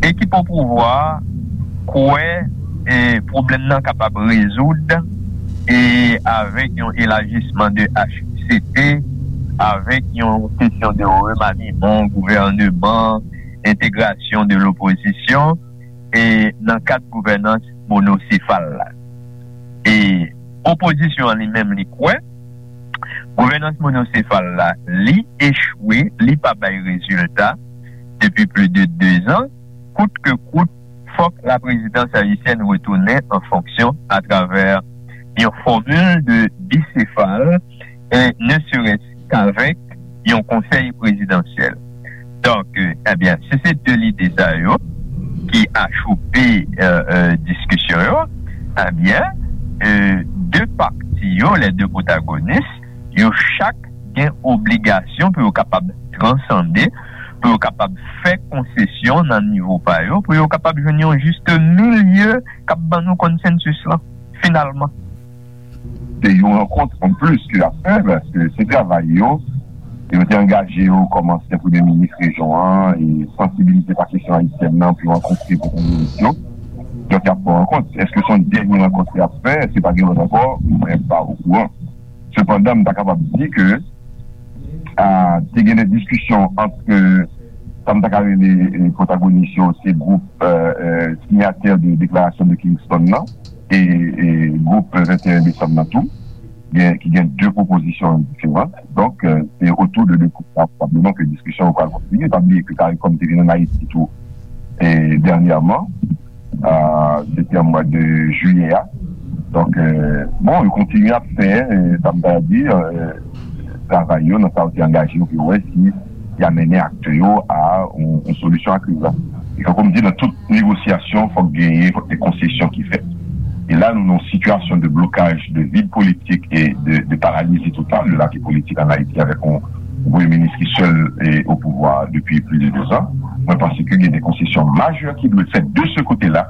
Ekip o pouvwa kwè, e, pwoblèm nan kapab rezoud, e, avèk yon elajisman de H C T, avèk yon kesyon de remaniman gouvèneman, entegrasyon de lopozisyon, e nan kad gouvènans monosefal la. E opozisyon an li menm, li kwè gouvènans monosefal la, li echwe, li pa bay rezilta depi plis de dezan. Kout ke kout, fòk laprezidans ayisyèn retounen an fonksyon atravè yon fòmil de bisefal, e ne serait-ce qu'avec yon konsèy prezidansyèl. Donk, e, ebyen, si se de lide sa yo ki achoupe, e, e, diskisyon yo, ebyen, e, de pati yo, les deux protagonistes, yo chak gen obligasyon pou yo kapab transande, pou yo kapab fè konsesyon nan nivo pa yo, pou yo kapab jwenn yon jis milye k ap ban nou konsansis lan, finalman. Se yon rankont an plis ke y ap fè, paske se travay yo. Yo te angaje yo kòm ansyen premye minis rejyon an, e sansibilize pa kesyon ayisyèn nan pou yo rankontre pwotagonis yo. Donk, y ap fè rankont. Èske se yon dènye rankont y ap fè? Èske pa gen lòt ankò? Mwen pa okouran. Sepandan, m ta kapab di ke, a, te gen de diskisyon ant, e, Sa m ta ka rele, e, pwotagonis yo, se gwoup, e, e, siyatè de deklarasyon de Kingston nan, e, e gwoup venteyen desanm nan tou, gen, ki gen de pwopozisyon diferan. Donk, e, se otou de de gwoup sa, pwobableman, ke diskisyon yo pral kontinye. Pa bliye ke CARICOM te vin ann Ayiti tou, e, dènyèman, a, depi an mwa de jiyè a. Donk, e, bon, yo kontinye ap fè, e, sa m ta di, e, travay yo, nan sa yo te angaje yo pou yo wè si y a mennen aktè yo a yon, yon solisyon a kriz la. E tankou m di, nan tout negosyasyon, fòk genyen, fòk gen konsesyon ki fèt. E la, nou nan yon sitiyasyon de blokaj, de vid politik e de, de paralizi total de lavi politik ann Ayiti avèk yon, yon premye minis ki sèl e o pouvwa depi plis de dezan. Mwen panse ke gen de konsesyon majè ki dwe fèt de se kote la,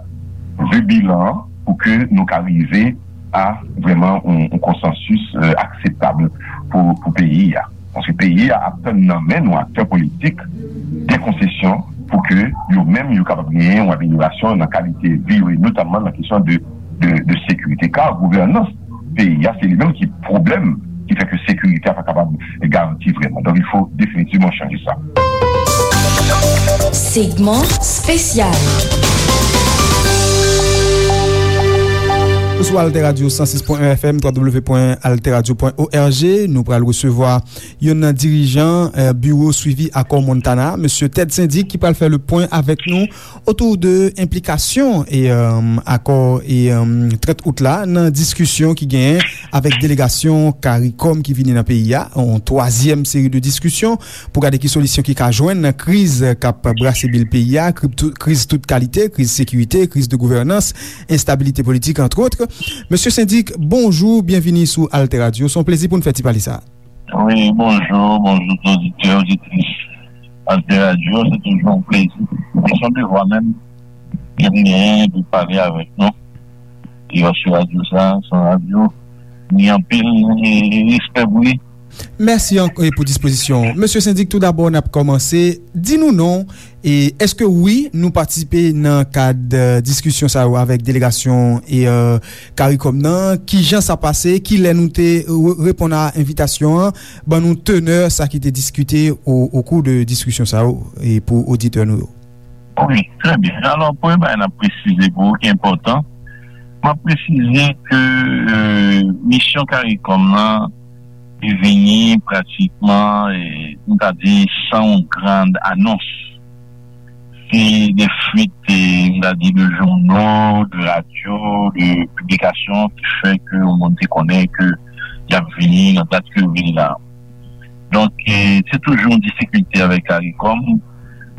vi bilan an, pou ke nou ka rive a vrèman yon, yon konsansis, e, akseptab pou, pou peyi a. Paske peyi a ap tann nan men nou, aktè politik, de konsesyon pou ke yo menm yo kapab genyen yon amelyorasyon nan kalite vi yo, e notamman nan kesyon de, de, de sekirite. Ka gouvènans peyi a, se li menm ki pwoblèm ki fè ke sekirite a pa kapab garanti vrèman. Donk, il faut définitivement changer ça. Segment spécial. Ou sou Alter Radio san sis pwen en F M, w w w pwen alter radio pwen o r g. Nou pral resevwa youn nan dirijan, eh, biwo swivi akò Montana, mesye Ted Syndic, ki pral fè le pwen avèk nou otou de enplikasyon e, eh, akò e, eh, trant out la nan diskisyon ki genyen avèk delegasyon CARICOM ki vini nan peyi a. Yon twazyèm seri de diskisyon pou gade ki solisyon ki ka jwenn nan kriz k ap brase bil peyi a, kripto-, kriz tout kalite, kriz sekirite, kriz de gouvènans, enstabilite politik, entre autres. Mesye Syndic, bonjou, byenvini sou Alter Radio. Se yon plezi pou n fè ti pale sa. Wi, bonjou, bonjou tout oditè, oditris Alter Radio. Se toujou yon plezi. E se yon devwa menm ke m genyen pou pale avèk nou. E paske radyo sa, se yon radyo, ni anpil, e, e respè pou li. Mèsi ank-, e, pou dispozisyon. Mesye Syndic, tou dabò, n ap kòmanse. Di nou non, e èske wi, nou patisipe nan kad, eh, diskisyon sa yo avèk delegasyon e, eh, CARICOM nan? Kijan sa pase? Kilè nou te re-, reponn a envitasyon an? Ban nou tenè sa ki te diskite o, o kou de diskisyon sa yo, e pou oditè nou yo. Wi, trè byen. Alò, premye bagay n ap presize pou ou ki enpòtan, m ap presize ke, eh, misyon CARICOM nan, li vini pratikman, eh, m ta di, san yon gran anons. Se de fuit, eh, m ta di, de jounal, de radyo, de piblikasyon ki fè ke yon moun te konnen ke y ap vini nan dat ke yo vini la. Donk, eh, se toujou yon difikilte avèk CARICOM,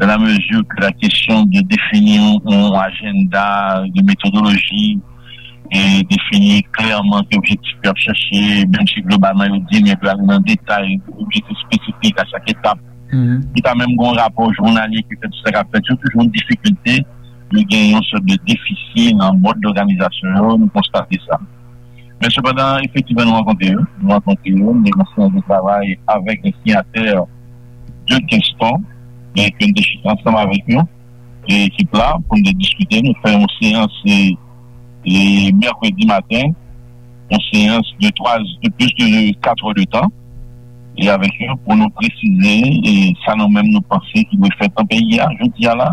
dans la mesure que la question de définir un, un agenda, de méthodologie, e defini klèman ki objektif yo ap chache, menm si globalman yo di, men pou ale nan detay, objektif espesifik a chak etap. Li pa menm gen yon rapò jounalye ki fè tout sa k ap fèt, se toujou yon difikilte, yo gen yon sòt de defisi nan mòd dòganizasyon yo, nou konstate sa. Men sepandan, efektivman, nou rankontre yo, nou rankontre yo, nou gen yon seyans de travay avèk les signataires de Kingston, e ke nou te chita ansanm avèk yo, e ekip la, pou n te diskite, nou fè yon seyans, e, e mèkredi maten, yon seyans de twa, de plis de kat è de tan, e avèk yo pou nou presize, e sa nou menm nou panse ki dwe fèt nan peyi a, jodi a la,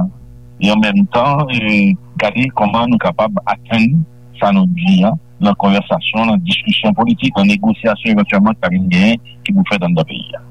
e an menm tan, e gade kòman nou kapab atenn sa nou di a, nan konvèsasyon, nan diskisyon politik, nan negosyasyon evantyèlman ki ta vin genyen, ki pou fèt anndan peyi a.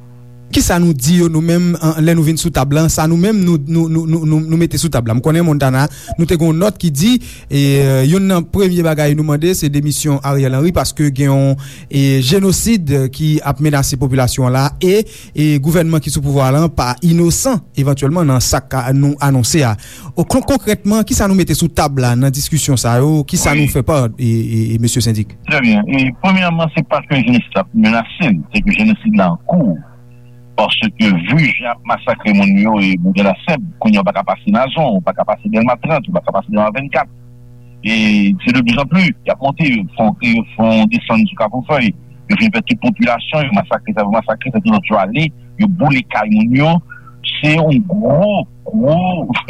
Kisa nou di yo nou menm, an, lè nou vin sou tab la, sa nou menm nou, nou, nou, nou, nou, nou mete sou tab la? M konnen Montana, nou te gen yon nòt ki di, e, youn nan premye bagay nou mande, se demisyon Ariel Henry, paske gen yon, e, jenosid ki ap menase popilasyon an la, e, e gouvènman ki sou pouvwa la pa inosan, evantyèlman, nan sa k ka nou anonse a. O, kon-, konkrètman, kisa nou mete sou tab la nan diskisyon sa yo? Kisa nou fè pa, e, e, e, mesye Syndic? Trè byen. E, premyèman, se pa ke jenosid la ap menase, se ke jenosid la an kou. Paske, vi jan y ap masakre moun yo, e Boudè Lasèb, kounye a, ou pa ka pase Nazon, ou pa ka pase Dèlma trant, ou pa ka pase Dèlma vennkat. E se de plus en plus, y ap monte, yo fè yon, yo fè yon desann sou Kafou Fèy, yo fin fè tout popilasyon, yo masakre sa, yo masakre sa, tout lòt yo ale, yo boule kay moun yo. Se yon gwo, gwo,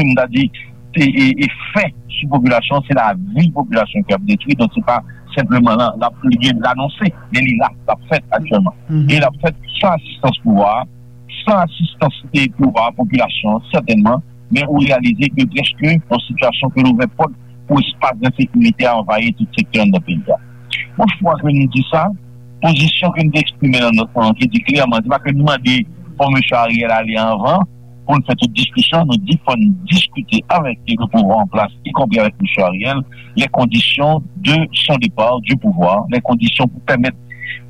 m ta di, e, e, efè sou popilasyon, se lavi popilasyon ki ap detwi, donk se pa senpleman la, la, li gen l anonse, men li la, l ap fèt aktyèlman. E l ap fèt san asistans pouvwa a, san asistans e pouvwa popilasyon an, sètènman, men ou reyalize ke prèske yon sitiyasyon ke l ouvè pòt pou espas ensekirite a anvayi tout sektè anndan peyi a. Bon, fwa ke nou di sa, pozisyon ke nou te eksprime nan nòt lan, ki di klèman, se pa ke nou mande fò mesye Ariel ale anvan, pou n fè tout diskisyon, nou di fò n diskite avèk le pouvwa an plas, y compris avec mesye Ariel, les conditions de son départ du pouvoir, les conditions pou pèmèt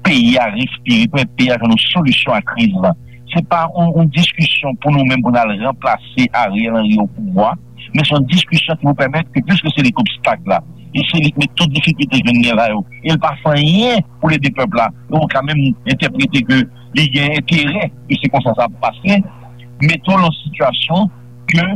peyi a respire, pèmèt peyi a jwenn yon solisyon a kriz la. Se pa yon, yon diskisyon pou nou menm pou n al ranplase Ariel Henry o pouvwa, men se yon diskisyon ki pou pèmèt ke, piske se li k obstak la, e se li k met tout difikilte ke n gen la yo, e l pa fè anyen pou l ede pèp la, e ou ka menm entèprete ke li gen enterè ke se konsa sa ap pase, mete w nan sitiyasyon ke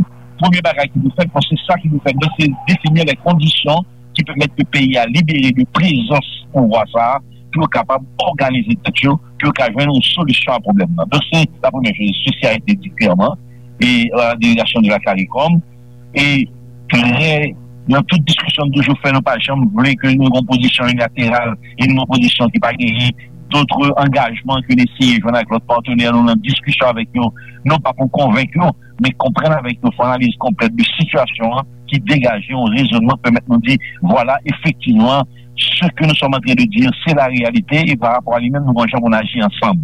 premye bagay ki pou fèt, paske sa ki pou fèt, se defini lè kondisyon ki pèmèt ke peyi a libere de prezans pouvwa sa a, pou yo kapab òganize tèt yo, pou yo ka jwenn yon solisyon a pwoblèm nan. Donk, se la premyè choz, se sa a été di klèman, e la delegasyon de la CARICOM, e trè, nan tout diskisyon nou toujou fè, nou pa janm vle ke nou gen yon pozisyon unilateral, e nou gen yon pozisyon ki pa genyen dòt angajman ke n eseye jwenn avèk lòt patnè nou nan diskisyon avèk yo, non pa pou konvenk yo, men konprann avèk yo, fè analiz konplèt de sitiyasyon an, ki degaje yon rezonman k pèmèt nou di, vwala, efektivman, ce que nous sommes en train de dire, c'est la réalité, e pa rapò a li menm, nou gen yon jan pou n aji ansanm.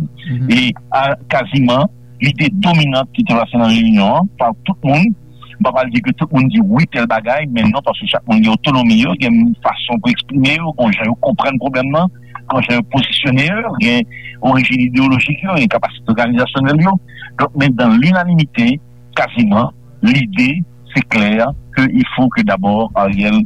E a, kaziman, lide dominant ki te pase nan reyinyon an, pa tout moun, m pa pral di ke tout moun di wi tèl bagay, men non, paske chak moun gen otonomi yo, gen fason pou eksprime yo, gen jan yo konprann pwoblèm nan, gen jan yo pozisyone yo, gen orijin ideyolojik yo, gen kapasite òganizasyonèl yo. Donk, men dans l'unanimité, kaziman, lide, se klè ke il faut que d'abord Ariel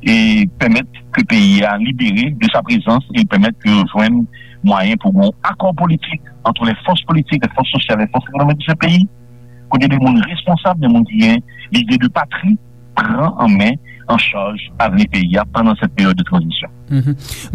e pèmèt ke peyi a libere de sa prezans e pèmèt ke yo jwenn mwayen pou gon akò politik entre les forces politiques, les forces sociales, les forces économiques de ce pays, kote de moun responsab, de moun ki gen lide de patri, pran an men, an chaj avni peyi a pandan cette période de transition.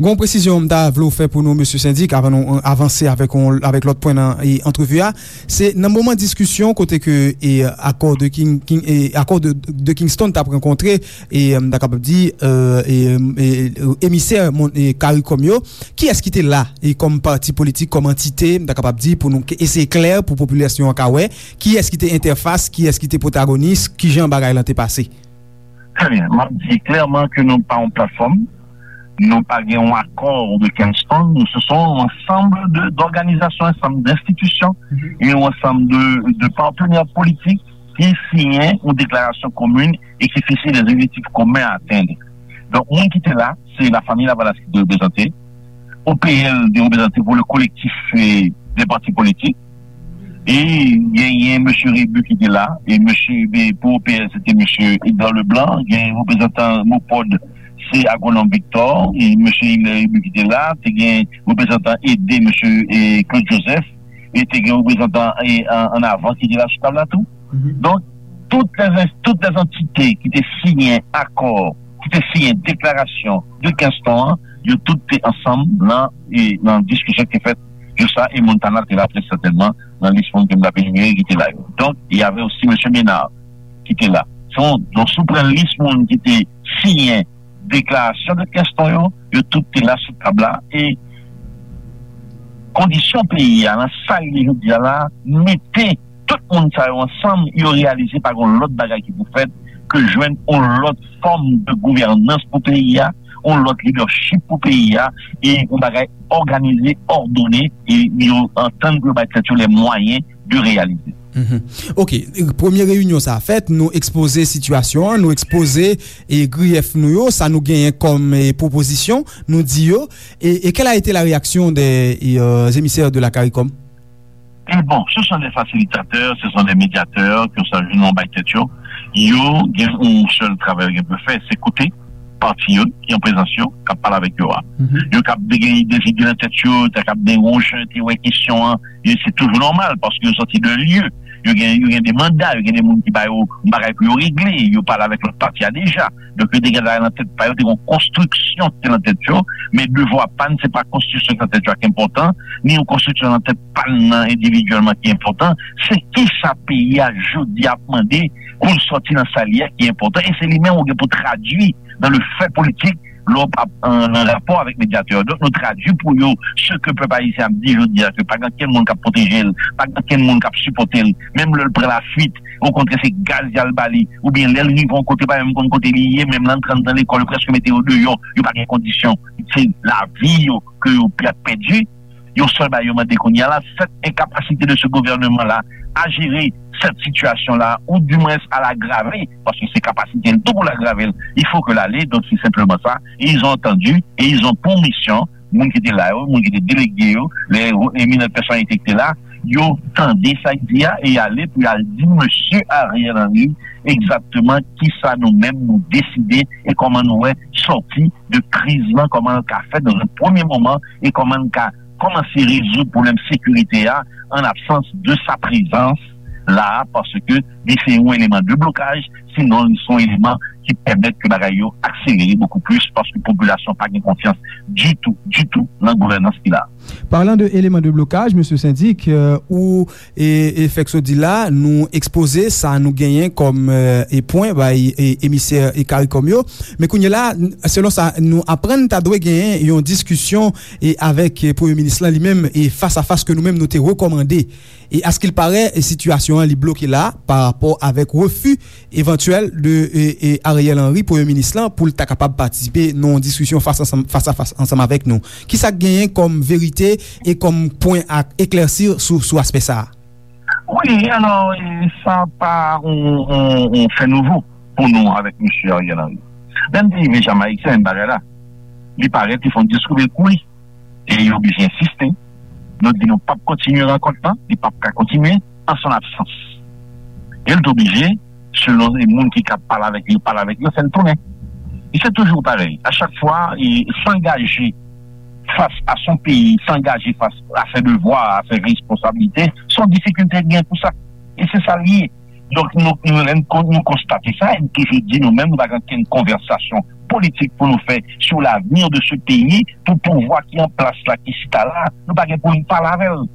Gon presizyon m ta vle w fè pou nou, mesye sendik, avan nou, euh, avanse avèk, avèk lòt pwen nan, e, antrevi a. Se nan moman diskisyon kote ke, e, akò de King, King, e, akò de, de Kingston t ap rankontre, e, m ta kapab di, euh, e, e, emisè, e, CARICOM yo, kiyès ki te la, e, kòm pati politik, kòm antite, m ta kapab di, pou nou ke, eseye klè pou popilasyon an ka wè, kiyès ki te entèfas, kiyès ki te pwotagonis, kijan bagay lan te pase? Très bien. M ap di klèman ke nou pa yon platfòm, nou pa gen yon akò de Kingston, nou se son yon ansanm de, d'òganizasyon, ansanm d'institisyon e yon ansanm de, de patnè politik ki siyen yon deklarasyon komin e ki fikse des objectifs communs à atteindre. Donk, moun ki te la, se la famille Lavalas ki te reprezante, O P L te reprezante pou le collectif, eh, des partis politiques, e genyen mesye Rebu ki te la, e mesye, e pou O P L, se te mesye Edgar Leblanc, gen reprezantan MOPOD, se Agwonòm Victor, e mesye Hilaire Rebu ki te la, te gen reprezantan ede mesye, e, Claude Joseph, e te gen reprezantan, e, an, an avan ki te la sou tab la tou. Donk, tout lè, tout lè antite ki te siyen akò, ki te siyen deklarasyon de Kingston an, yo tout te ansanm nan, e, nan diskisyon ki te fèt jou sa, e Montana te la trè sètènman nan lis moun ke m t ap enimere ki te la yo. Donk, y avait aussi mesye Ménard ki te la. Se yon, donk, si w pran lis moun ki te siyen deklarasyon de Kingston yo, yo tout te la sou tab la, e kondisyon peyi a, nan sa l ye jodi a la, mete tout moun sa yo ansanm, yo reyalize pa gen lòt bagay ki pou fèt ke jwenn yon lòt fòm de gouvènans pou peyi a, yon lòt lidèchip pou peyi a, e yon bagay òganize, òdone, e yo antann pou yo bay tèt yo les moyens de réaliser. Mhm. Ok, premye reyinyon sa a fèt, nou ekspoze sitiyasyon an, nou ekspoze, e, griyèf nou yo, sa nou genyen kòm, e, pwopozisyon, nou di yo, e, et quelle a été la réaction des, e, euh, émissaires de la CARICOM? Et bon, ce sont des facilitateurs, ce sont des médiateurs, ke sa jwenn yon bay tèt yo, yo gen yon sèl travay yo gen pou yo fè, se koute pati yo ki an prezans yo, k ap pale avèk yo a. Yo kab gen de zide nan tèt yo, ta kab gen yon jan te wè kesyon an, e se toujou nòmal, paske yo sòti de lye, yo gen, yo gen de manda, yo gen de moun ki ba yo yon bagay pou yo regle, yo pale avèk lòt pati a deja. Donk, yo te gen bagay nan tèt pa yo, te gen yon konstriksyon ki te nan tèt yo, men devwa pa n, se pa konstriksyon ki nan tèt yo a ki enpòtan, ni yon konstriksyon nan tèt pa n nan endividyèlman ki enpòtan, se kisa peyi a jodi a ap mande pou l sòti nan sa l ye a ki enpòtan, e se li menm ou gen pou tradui dans le fait politique, lè w p ap an, an rapò avèk medyatè yo. Donk, nou tradui pou yo ce que pèp ayisyen ap di jodi a, ke pa gen ankenn moun k ap pwoteje l, pa gen ankenn moun k ap sipòte l, menm lè l pran lafuit, okontrè, se gaz y al ba li, oubyen lè l rive yon kote, pa menm konn kote li ye, menm lè l antre anndan lekòl, yo prèske mete yo deyò, yo pa gen kondisyon, se lavi yo ke yo p ap pèdi. Yon sèl bagay yo mande kounye a la, cette incapacité de ce gouvernement-là à gérer cette situation-là, ou du moins à l'aggraver, paske se kapasite l tou pou l agrave l, il faut que l ale, donk se senpleman sa, et ils ont entendu, et ils ont pour mission, moun ki te la yo, moun ki te delege yo, les éminentes personnalités ki te la, yo tande sa y di a, e y ale pou y al di mesye Ariel Henry egzakteman kisa nou menm nou deside e kòman nou wè sòti de kriz lan, kòman l ka fèt dans un premier moment, e kòman l ka kòmanse rezoud pwoblèm sekirite a an absans de sa prezans la, paske li se yon eleman de blokaj, sinon li se yon eleman ki pèmèt ke bagay yo akselere bokou plis, paske popilasyon pa gen konfyans ditou, ditou nan gouvènans ki la. Parlant de éléments de blocage, mesye Sendik, euh, ou e, e fèk sot di la, nou ekspoze sa nou genyen kòm, e, e pwen bay, e, emisè, e, CARICOM yo. Men kounye la, n-, selon sa nou aprann, ta dwe genyen yon diskisyon, e, avèk, e, premye minis lan li menm, e, fas a fas ke nou menm nou te rekòmande. E askilparè, e, sitiyasyon an li bloke la pa rapò avèk refi evantyèl de, e, e, Ariel Henry, premye minis lan, pou l ta kapab patisipe nan yon diskisyon fas ansanm, fas a fas ansanm avèk nou. Kisa k genyen kòm verite e kòm pwen a eklèsi sou, sou aspè sa a? Wi, alò, e, sa pa yon, yon, yon fè nouvo pou nou avèk mesye Ariel Henry. Lè n te rive Jamayik, se menm bagay la. Li parèt, li fè yon diskou, men kouri. E yo oblije ensiste. Nou di nou p ap kontinye rankont lan, li p ap ka kontinye an son absans. E l te oblije, selon moun ki ka pale avèk li, pale avèk yo, fè l tounen. E se toujou parèy. A chak fwa, e s'engager face à son pays, s'engager face à ses devoirs, à ses responsabilités, se yon difikilte k gen pou sa. E se sa l ye. Donk, nou, nou, lè n kon-, nou konstate sa, e n toujou di nou menm, nou pa gen okenn konvèsasyon politik pou nou fè sur l'avenir de ce pays, pou pouvwa ki an plas la, ki chita la, nou pa gen pou n pale avè l.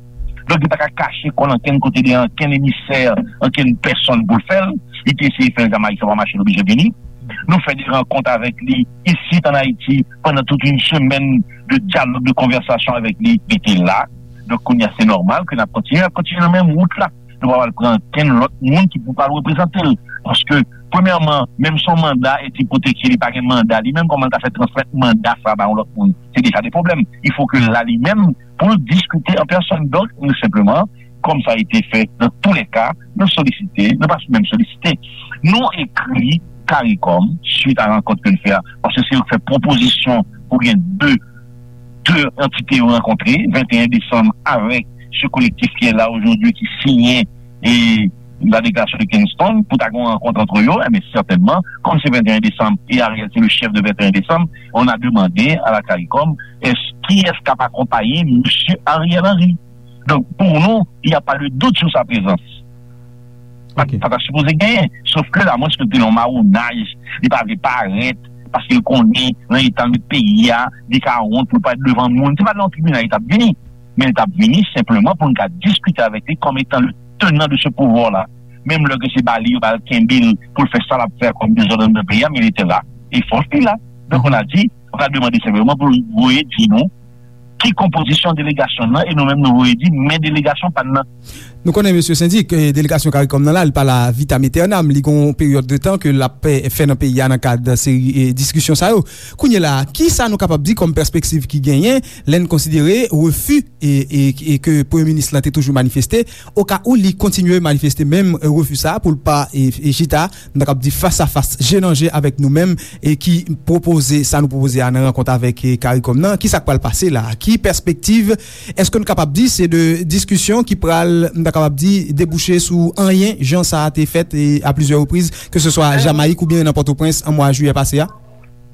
Donk, li pa ka kache kò l ankenn kote de ankenn emisè, ankenn pèsonn pou l fè l. Li te eseye fè l Jamayik, sa pa mache, l oblije vini. Nou fè de rankont avèk li isit an Ayiti pandan tout yon semèn de dyalòg, de konvèsasyon avèk li, li te la. Donk, kounye a, se nòmal ke n ap kontinye, n ap kontinye nan menm wout la. Nou pa pral pran ankenn lòt moun ki pou pral reprezante l. Paske, premyèman, menm si yon manda ete pwotège, li pa gen manda li menm, kòman l ta fè transmèt manda sa a ba yon lòt moun? Se deja de pwoblèm. Il faut que l la li menm pou l diskite an pèsòn. Donk, nou senpleman, kòm sa a ete fè, dans tous les cas, nou solisite, nou pa menm solisite. Nou ekri CARICOM, suit a rankont ke n fè a, paske se yo k fè pwopozisyon pou gen de de antite yo rankontre, venteyen desanm, avèk ce collectif qui est là aujourd'hui, ki siyen e la deklarasyon de Kingston, pou ta gen yon rankont antre yo, enben, sètènman, kòm se venteyen desanm, e Ariel se le chèf de venteyen desanm, on a demandé à la CARICOM, est-ce, qui est-ce k ap akonpaye mesye Ariel Henry? Donk, pou nou, il y a pas de doute sur sa présence. Pa, pa ta sipoze genyen. Sof ke la, mwen, se te yon mawonaj, li pa vle parèt, paske l konnen, nan eta l met peyi a, li ka wont pou l parèt devan moun. Se pa nan yon tribinal li t ap vini, men li t ap vini senpleman pou n ka diskite avèk li kòm etan le tenan de ce pouvwa la. Menm lè ke se ba li, yo ba l kenbe l pou l fè sa l ap fè kòm dezòd anndan peyi a, men li te la. E fòs li la. Donk, on a di, on a demande senpleman pou l voye di nou ki konpozisyon delegasyon nan, e nou menm nou voye di men delegasyon pa n nan. Nou konnen, mesye Sendik, eh, delegasyon CARICOM nan la, li pa la vitam aeternam, li gon peryòd de tan ke l ap, eh, fè nan peyi a nan kad seri, eh, diskisyon sa yo. Kounye la, kisa nou kapab di kòm pèspektiv ki genyen lè n konsidere refi e, e, e ke premye minis lan te toujou manifeste, oka ou li kontinye manifeste menm, eh, refi sa a pou l pa, eh, eh, chita, m ta kab di fas a fas, je nan je avèk nou menm, e ki pwopoze sa nou pwopoze a nan rankont avèk, eh, CARICOM nan? Kisa k pral pase la? Ki pèspektiv? Èske nou kapab di se de diskisyon ki pral, m ta kapab di, debouche sou anyen, jan sa a te fèt, eh, a plizyè repriz, ke se swa Jamayik oubyen nan Pòtoprens an mwa jiyè pase a?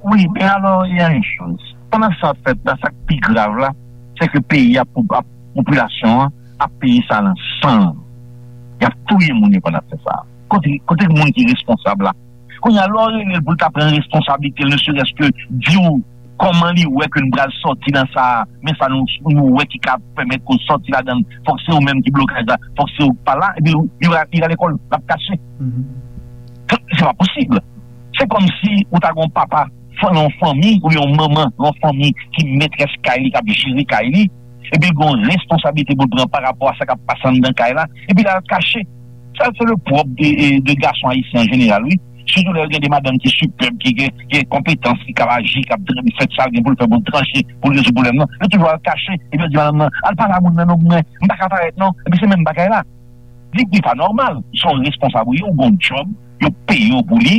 Wi, men alò, il y a une chose. Pandan sa ap fèt la, sa k pi grav la, se ke peyi a, pou, ap, popilasyon an ap peye sa nan san l. Y ap touye moun yo pandan ap fè sa. Kote, kote moun ki responsab la? Kounye a, lè w rele l pou l ta pran responsablite l, ne serait-ce que di w kòman li wè ke n pral sòti nan sa a, men sa nou, nou wè ki ka pèmèt ke w sòti ladan l, fòk se ou menm ki blokaj la, fòk se ou k pa la, epi li, li, li rale kò l, l ap kache. Se pa posib. Se kòmsi ou ta gen yon papa nan yon fanmi oubyen yon manman nan yon fanmi ki metrès kay li, k ap jere kay li, epi l gen yon responsablite pou l pran pa rapò a sa k ap pase anndan kay la, epi l al kache. Sa se le pwòp de, de gason ayisyen an jeneral, wi. Sitou lè yo gen de madanm ki sipèb, ki gen, ki gen konpetans, ki kab aji, k ap fè sa l gen pou l fè pou l tranche, pou l rezoud pwoblèm nan. Yo toujou al kache, epi yo di madanm nan, al pale a moun nan non, mwen, m pa ka parèt non. Epi se menm bagay la. Di ki pa nòmal. Se yon responsab ou ye, ou gon djòb, yo peye w pou li,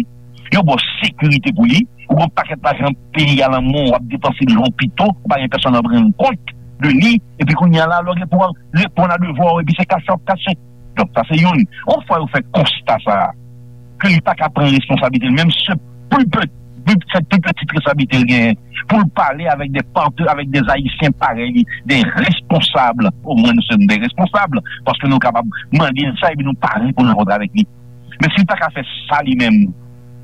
yo ba w sekirite pou li, ou gon pakèt lajan peyi a nan men w, w ap depanse l jan w pito, ou pa gen pèsonn ap rann kont de li, epi kounye a la, lè w gen pou w al reponn a devwa w, epi se kache w ap kache. Donk, sa se youn. Yon fwa yo fè konsta sa a, ke li pa ka pran responsablite l menm, se pli pe- pli- se pli pitit responsablite l genyen, pou l pale avèk de pate, avèk de Ayisyen parèy li, de responsab. Omwen, nou se de responsab, paske nou kapab mande l sa, epi nou pare pou n rankontre avèk li. Men si l pa ka fè sa li menm,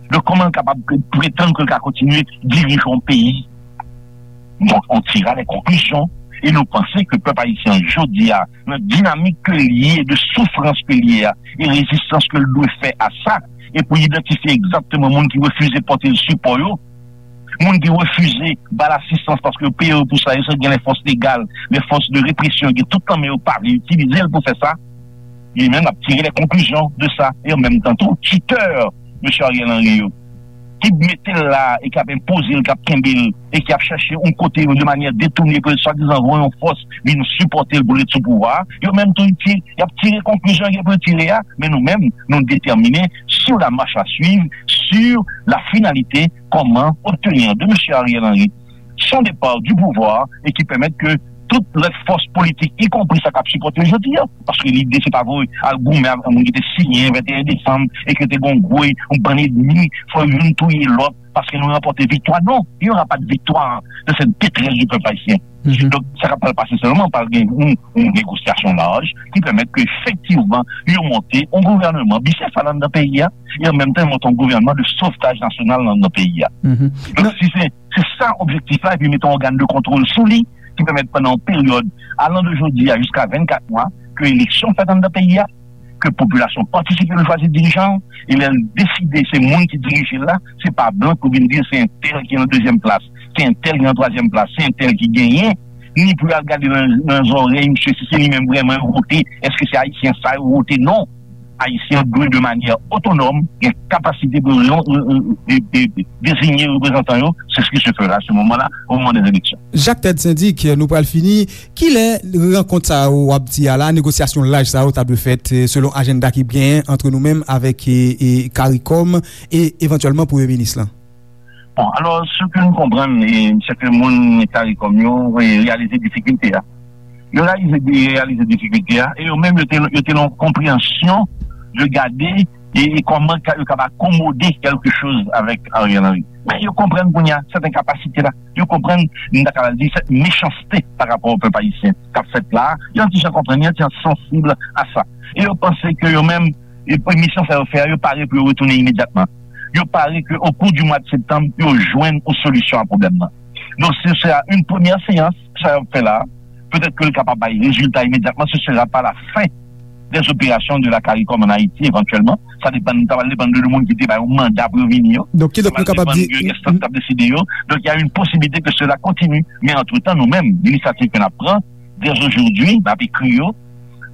donk, kòman l kapab pretann ke l ka kontinye dirije yon peyi? Donk, on tira les conclusions, e nou panse ke pèp ayisyen an jodi a, nan dinamik ke l ye, de soufrans ke l ye a, e rezistans ke l dwe fè a sa, e pou idantifye egzakteman moun ki refize pote l sipò yo, moun ki refize ba l asistans paske yo peye yo pou sa, yo sot gen lè fòs legal, lè fòs de represyon, gen tout nan men yo pa vle itilize l pou fè sa, li menm l ap tire les conclusions de sa. E an menm tan tou, cheater, mesye Ariel Henry yo, ki mete l la e k ap enpoze l, k ap kenbe l, e k ap chache yon kote de manyè detounen pou l swadizan voye yon fòs vin sipòte l pou l ret sou pouvwa a, yo menm tou, ti- y ap tire konklizyon gen pou yo tire a, men nou menm, nou detèmine sur la marche à suivre, sur la finalité, comment obtenir de mesye Ariel Henry son départ du pouvoir et qui permette que tout lòt fòs politik, y konpri sa k ap sipòte l jodi a. Paske lide se pa vre al goumen avèk moun ki te siyen venteyen desanm e ke te gen yon gwo yon bann ènmi, fò youn touye lòt paske nou ranpòte viktwa. Non, il n'y aura pas de victoire de cette détresse du peuple haïtien. Donk, sa k ap pral pase sèlman, pral gen yon, yon negosyasyon laj ki pèmèt ke efektivman yo monte yon gouvènman bisefal anndan peyi a, e an menm tan monte yon gouvènman de sovtaj nasyonal anndan peyi a. Donk, si se, se sa objektif la, epi mete yon ògàn de kontwòl sou li, ki pèmèt pandan yon peryòd alan de jodi a jiska vennkat mwa, ke eleksyon fèt anndan peyi a, ke popilasyon patisipe pou chwazi dirijan, e lè l deside se moun ki dirije l la, se pa blan ki vin di se entèl ki nan dezyèm plas, se entèl ki nan twazyèm plas, se entèl ki genyen, ni pou y al gade nan, nan zòrèy misye si se li menm vrèman yo vote, èske se ayisyen sa yo vote? Non. Ayisyen dwe de manyè otonòm gen kapasite pou yo, e, e, e, deziye reprezantan yo, c'est ce qui se fera à ce moment-là, au moment des élections. Jacques Ted Syndic, nou pral fini. Kilè rankont sa yo w ap di a la, negosyasyon laj sa yo ta dwe fèt, e, selon ajanda ki genyen ant nou menm avèk, e, e, CARICOM e evantyèlman premye minis lan? Bon, alò, se ke nou konprann, e, se ke moun CARICOM yo, e, reyalize difikilte a. Yo reyalize, reyalize difikilte a, e yo menm, yo te, yo te nan yon konpreyansyon de gade e, e kòman ka, yo kapab akomode kèlke choz avèk Ariel Henry. Men yo konprann kounye a sèten kapasite la. Yo konprann, m ta kapab di, sèt mechanste pa rapò o pèp ayisyen k ap fèt la. Yo yon ti jan konprann, yo yon ti jan sansib a sa. E yo panse ke yo menm, e, misyon sa yo fè a, yo pare pou yo retounen imedyatman. Yo pare ke o kou di mwa de septanm, yo jwenn yon solisyon a pwoblèm nan. Donk, se sera une première séance, sa yo ap fè la, petèt ke l kapab bay rezilta imedyatman, ce sera pas la fin des opérations de la CARICOM en Haïti, éventuellement. Sa depann, sa va depann de moun ki te bay yon manda pou yo vini yo. Donk, kidonk, nou kapab di, de enstans k ap deside yo. Donk, il y a une possibilité que cela continue. Men antretan, nou menm, linisyativ ke n ap pran, dès aujourd'hui, n ap ekri yo,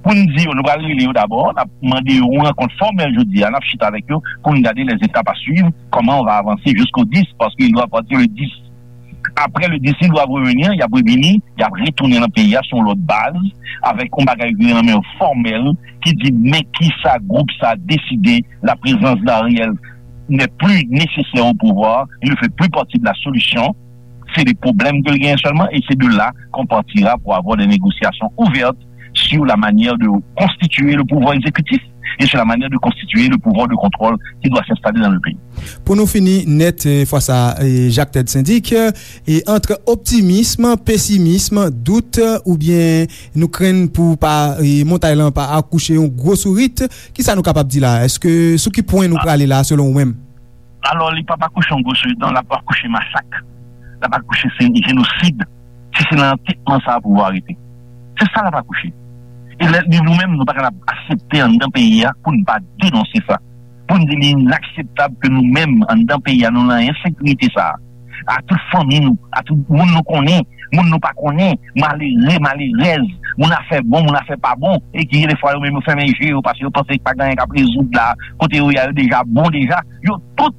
pou n di yo, nou pral rele yo dabò, n ap mande yo yon rankont fòmèl jodi a, n ap chita avèk yo, pou n gade les étapes à suivre, comment on va avancer jusqu'au dix, parce qu'il doit partir le dix. Après le dix, ils doivent revenir, y ap revini, y ap retounen nan peyi a sou yon lòt baz, avèk yon bagay ki nan men yo fòmèl, ki di men kisa gwoup sa deside, la présence d'Ariel n'est plus nécessaire au pouvoir, il ne fait plus partie de la solution, c'est des problèmes que l genyen sèlman, et c'est de là qu'on partira pour avoir des négociations ouvertes sur la manière de constituer le pouvoir exécutif et sur la manière de constituer le pouvoir de contrôle qui doit s'installer dans le pays. Pou nou fini nèt, e, fwa sa, e, Jacques Ted Syndic, e, ant optimism, pesimism, dout, oubyen nou krenn pou pa, e, montay lan pa akouche yon gwo sourit, kisa nou kapab di la? Èske sou ki pwen nou prale la, selon ou menm? Alò, li p ap akouche yon gwo sourit, non, l ap akouche masak. L ap akouche se jenosid. Si se nan antètman sa a pou yo arete. Se sa l ap akouche. E lè, nou menm, nou pa kapab aksepte anndan peyi a pou n pa denonse sa. Pou n di li inakseptab ke nou menm, anndan peyi a, nou nan ensekirite sa a. a tout fanmi nou, a tout moun nou konnen, moun nou pa konnen, malere, malerèz, moun afè bon, moun afè pa bon, e ki gen defwa yo menm yo fèmen je yo paske yo panse pa gen anyen k ap rezoud la, kote yo ye a yo deja bon deja, yo tout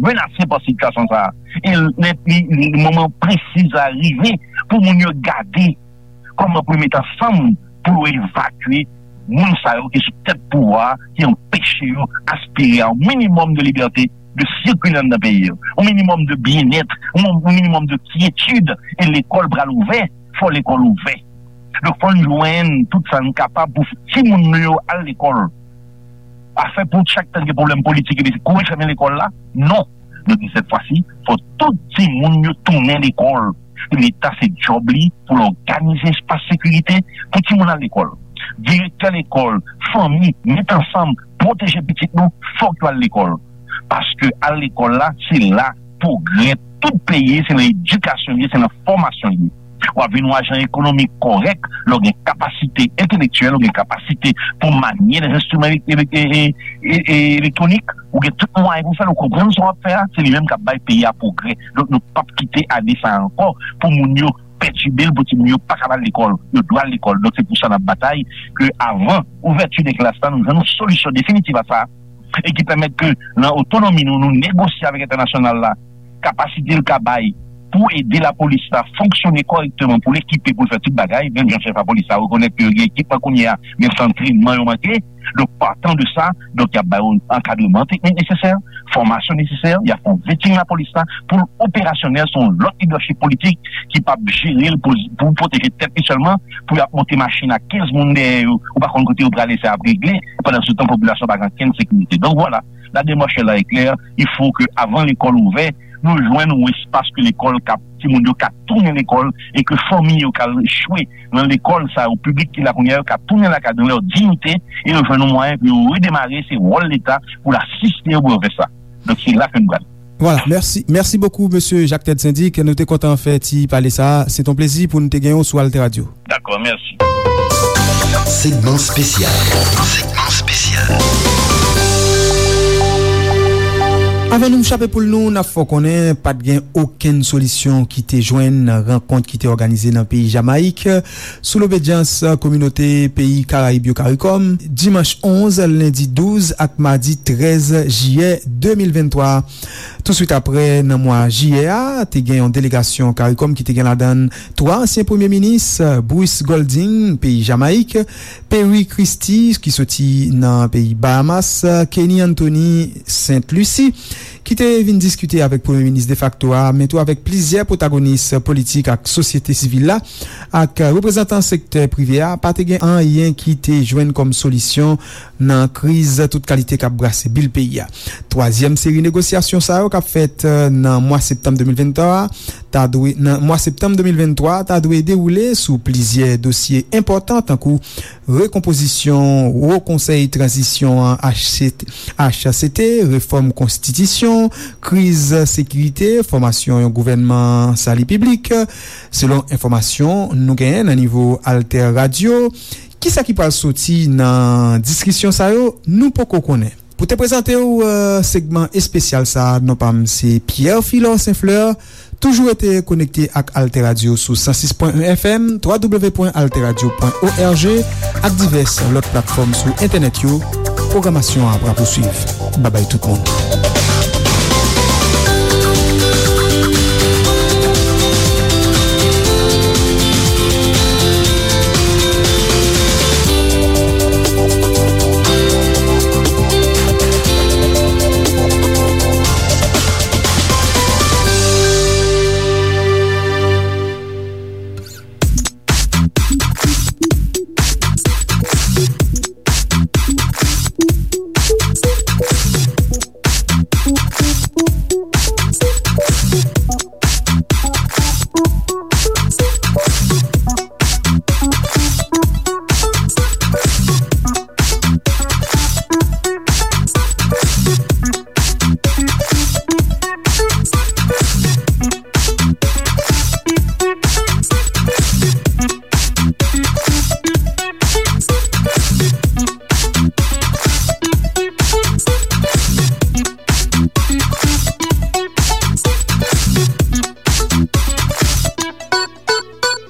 menase pa sitiyasyon sa a. E lè li, li, li moman presi sa a rive pou moun yo gade kòman pou yo met ansanm pou yo evakye moun sa yo ki sou tèt pouvwa a, ki anpeche yo aspire a yon minimòm de libète de sikile anndan peyi yo, yon minimòm de byennèt, yon, yon minimòm de kyetid. E lekòl pral ouvè, fò lekòl ouvè. Donk, fò n jwenn tout sa n kapab pou timoun nou yo al lekòl. Afè pou chak tan gen pwoblèm politik epi kouri fèmen lekòl la, non. Nou di sèt fwa si, fò tout timoun yo tounen lekòl. Leta se djòb li pou l òganize espas sekirite pou timoun al lekòl. Direktè lekòl, fanmi, met ansanm, pwoteje pitit nou, fòk yo al lekòl. Paske al lekòl la, se la pwogrè tout peyi, se nan edikasyon li ye, se nan fòmasyon li ye. W ap vin yon ajan ekonomik kòrèk lè w gen kapasite entelektyèl, w gen kapasite pou manye lè enstriman e, e, e, e, e, elektwonik, ou gen tout mwayen pou fè l, ou konprann sa w ap fè a, se li menm k ap bay peyi a pwogrè. Donk, nou p ap kite ane sa a ankò pou moun yo pètibe l, pou timoun yo pa ka al lekòl. Yo dwe al lekòl. Donk, se pou sa n ap batay ke avan ouvèti de klas la, nou jwenn yon solisyon definitif a sa, e ki pèmèt ke nan otonomi nou, nou negosye avèk entènasyonal la, kapasite l ka bay pou ede lapolis la fonksyone kòrèkteman, pou l ekipe, pou l fè tout bagay, menm jan chèf lapolis la rekonèt ke yo gen ekipman kounye a, men se antrènman yo manke. Donk, patan de sa, donk, y ap ba yo ankadreman teknik nesesè, fòmasyon nesesè, y ap fè yon vetting lapolis la, pou l operasyonèl, se yon lòt lidèchip politik ki p ap jere l pou, pou pwoteje tèt li sèlman, pou y ap monte machin ak kenz moun dèyè yo, ou pa konn kote yo prale, sa y ap regle, pandan se tan, popilasyon pa gen okenn sekirite. Donk, vwala, la démarche là est claire, il faut que, avan lekòl ouvè, nou jwenn yon espas ke lekòl ka, timoun yo ka tounen lekòl, e ke fanmi yo ka echwe nan lekòl sa yo, piblik ki la kounye a yo ka tounen lakay yo nan lè diyite, e yo jwenn yon mwayen pou yo redemare, se wòl Leta pou l asiste yo pou yo fè sa. Donk, se la ke n pral. Vwala, mèsi. Mèsi bokou, mesye Jacques Ted Syndic. Nou te kontan fè ti pale sa a. Se t on plezi pou nou te gen w sou Alter Radio. Dakò, mèsi. Segment spécial. Segment spécial. Avan nou chape poul nou, n ap fè w konnen pa t gen okenn solisyon ki te jwenn nan rankont ki te òganize nan peyi Jamayik, sou lobedyans kominote peyi Karayib yo, CARICOM, dimanch onz, lendi douz ak madi trèz jiyè de mil venntwa. Touswit apre, nan mwa jiyè a, te gen yon delegasyon CARICOM ki te gen ladan l twa ansyen premye minis, Bruce Golding, peyi Jamayik, Perry Christie, ki soti nan peyi Bahamas, Kenny Anthony, Sent Lisi, ki te vin diskite avèk premye minis defakto a, men tou avèk plizyè pwotagonis politik ak sosyete sivil la, ak reprezantan sektè prive a, pa te gen anyen ki te jwenn kòm solisyon nan kriz tout kalite k ap brase bil peyi a. Twazyèm seri negosyasyon sa yo k ap fèt, eh, nan mwa septanm de mil venntwa a, ta dwe, nan mwa septanm de mil venntwa, ta dwe dewoule sou plizyè dosye enpòtan, tankou rekonpozisyon Wo Konsèy Tranzisyon an, H C T, H C T, refòm konstitisyon, kriz sekirite, fòmasyon yon gouvènman sali piblik, selon enfòmasyon nou genyen nan nivo Alter Radio. Kisa ki pral soti nan diskisyon sa yo, nou poko konnen. Pou te prezante w, eh, segman espesyal sa a, non pa m se Pierre Philor Saint Fleur. Toujou rete konekte ak Alter Radio sou san sis pwen en F M, twa w pwen alter radio pwen O R G, ak divès lòt platfòm sou entènèt yo. Pwogramasyon an ap rapousuiv. Babay tout moun.